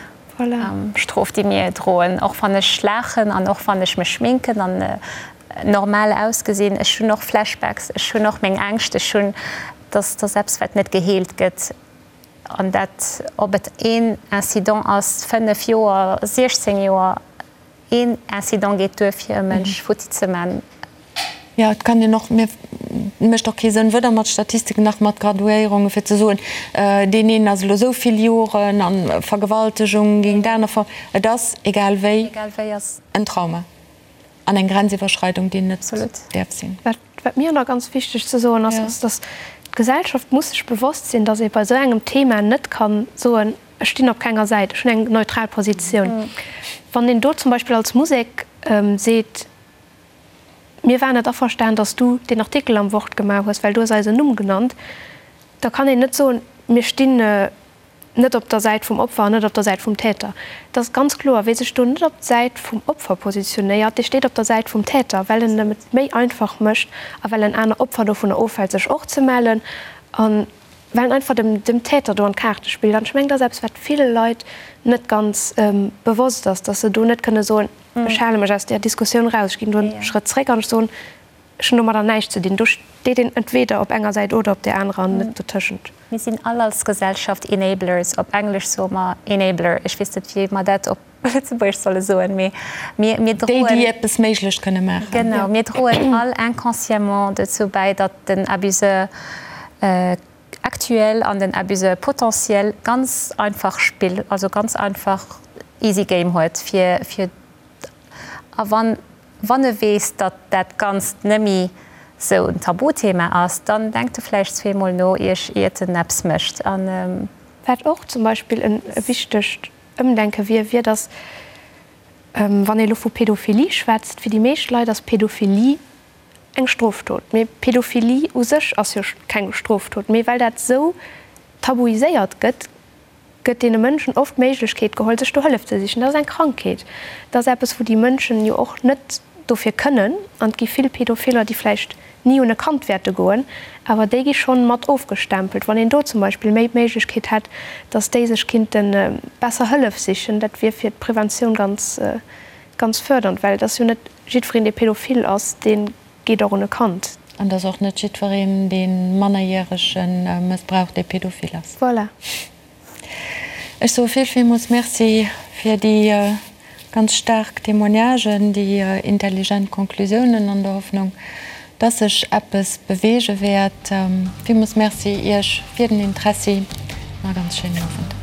Strof, déi mir droen. Och wann ech laachen an och wann ech mech schminken an normal ausgesinn, ech hunn och Flashbacks, ech hunn och meng Ängscht, ech hunn, dass dass eppes wat net geheelt gëtt. An dat, ob et een Incident ass, 5 Joer, 16 Joer, een Incident geet duer fir e Mënsch futti ze man. Jo, et kann een och, mir mécht och kee Sënn, weder mat Statistiken nach mat Graduéierungen, fir ze soen, deen een ass elo esou vill Joren a Vergewaltegung géint aner Ver. Et ass, egal wéi, en Trauma an eng Grenziwwerschreidung, déi net däerf sinn. Wat mir nach ganz wichteg ze soen ass, ass, dass d'Gesellschaft muss sech bewosst sinn, dass ee bei esou engem Thema net ka soen, ech stinn op kenger Säit, ech hunn eng neutral Positioun. Wann een do zum Beispill als Musek seet, mir waren net averstan, dass du deen Artikel am Wort gemaach hues, well du hues eisen Numm genannt, da kann een net soen, mir stinn net op der Säit vum Opfer an net op der Säit vum Täter. Et ass ganz kloer, wie sech do net op d'Säit vum Opfer positionéiert, dee steet op der Säit vum Täter, well en em et méi einfach mécht a well en aner Opfer dovunner ofhält, sech och ze mellen a well en einfach dem, dem Täter do an d'Kaarte spillt. An ech mengen, dat ass eppes, wat ville Leit net ganz bewosst ass, dass se do net kënne soen, ech hale mech aus där Diskussioun eraus, ech ginn do e Schrëtt zréck an ech soen, Ech hunn domadder näischt ze dinn. Do steet een entweder op enger Säit oder op där anerer an net dotëschent. Mir sinn all als Gesellschaft Enablers. Op Englesch soe mer Enabler. Ech weess net, wéi mer dat op Lëtzebuergesch solle soen, mee mir, mir droen. Déi, déi eppes méiglech kënne maachen. Genau, mir droen all inconsciemment dozou bäi, datt den Abuseur actuel an den Abuseur potentiel ganz einfach Spill, also ganz einfach easy game huet, fir, fir, a wann Wann e weess, datt dat Ganzt nëmmi sou en Tabuthema ass, dann denkt e vläicht zweemol no, iert en eppes mécht. An. Wat och zum Beispill e wichtegt Ëmdenke wier, wier, datt, wann ee elo vu Pädophilie schwätzt, fir déi meescht Leit ass Pädophilie eng Strofdot. Mee Pädophilie u sech ass jo keng Strofdot. Mee well dat sou tabuiséiert gëtt, gëtt deene Mënschen oft d'Méiglechkeet geholl, sech do Hëllef ze sichen. Dat ass eng Krankheet. Dat ass eppes, wou déi Mënschen jo och net dofir kënnen. An et gi vill Pädophiller, déi vläicht ni un e Kand wäerte goen, awer déi gi schonn mat ofgestempelt. Wann een do zum Beispill méi d'Méiglechkeet hätt, dass déi sech kinnte besser Hëllef sichen, dat wier fir d'Preventioun ganz, ganz fërdernd, well et ass jo net jiddwereen, dee pädophil ass, dee geet och un e Kand. An et ass och net jiddwereen, dee Mannerjärege mëssbraucht, dee pädophil ass. Voilà. Ech soe vill, villmools Merci fir déi ganz staark Témoignagen, déi intelligent Conclusiounen an der Hoffnung, dass sech eppes beweege wäert. Villmools Merci Iech fir den Interessi an e ganz schéinen Owend.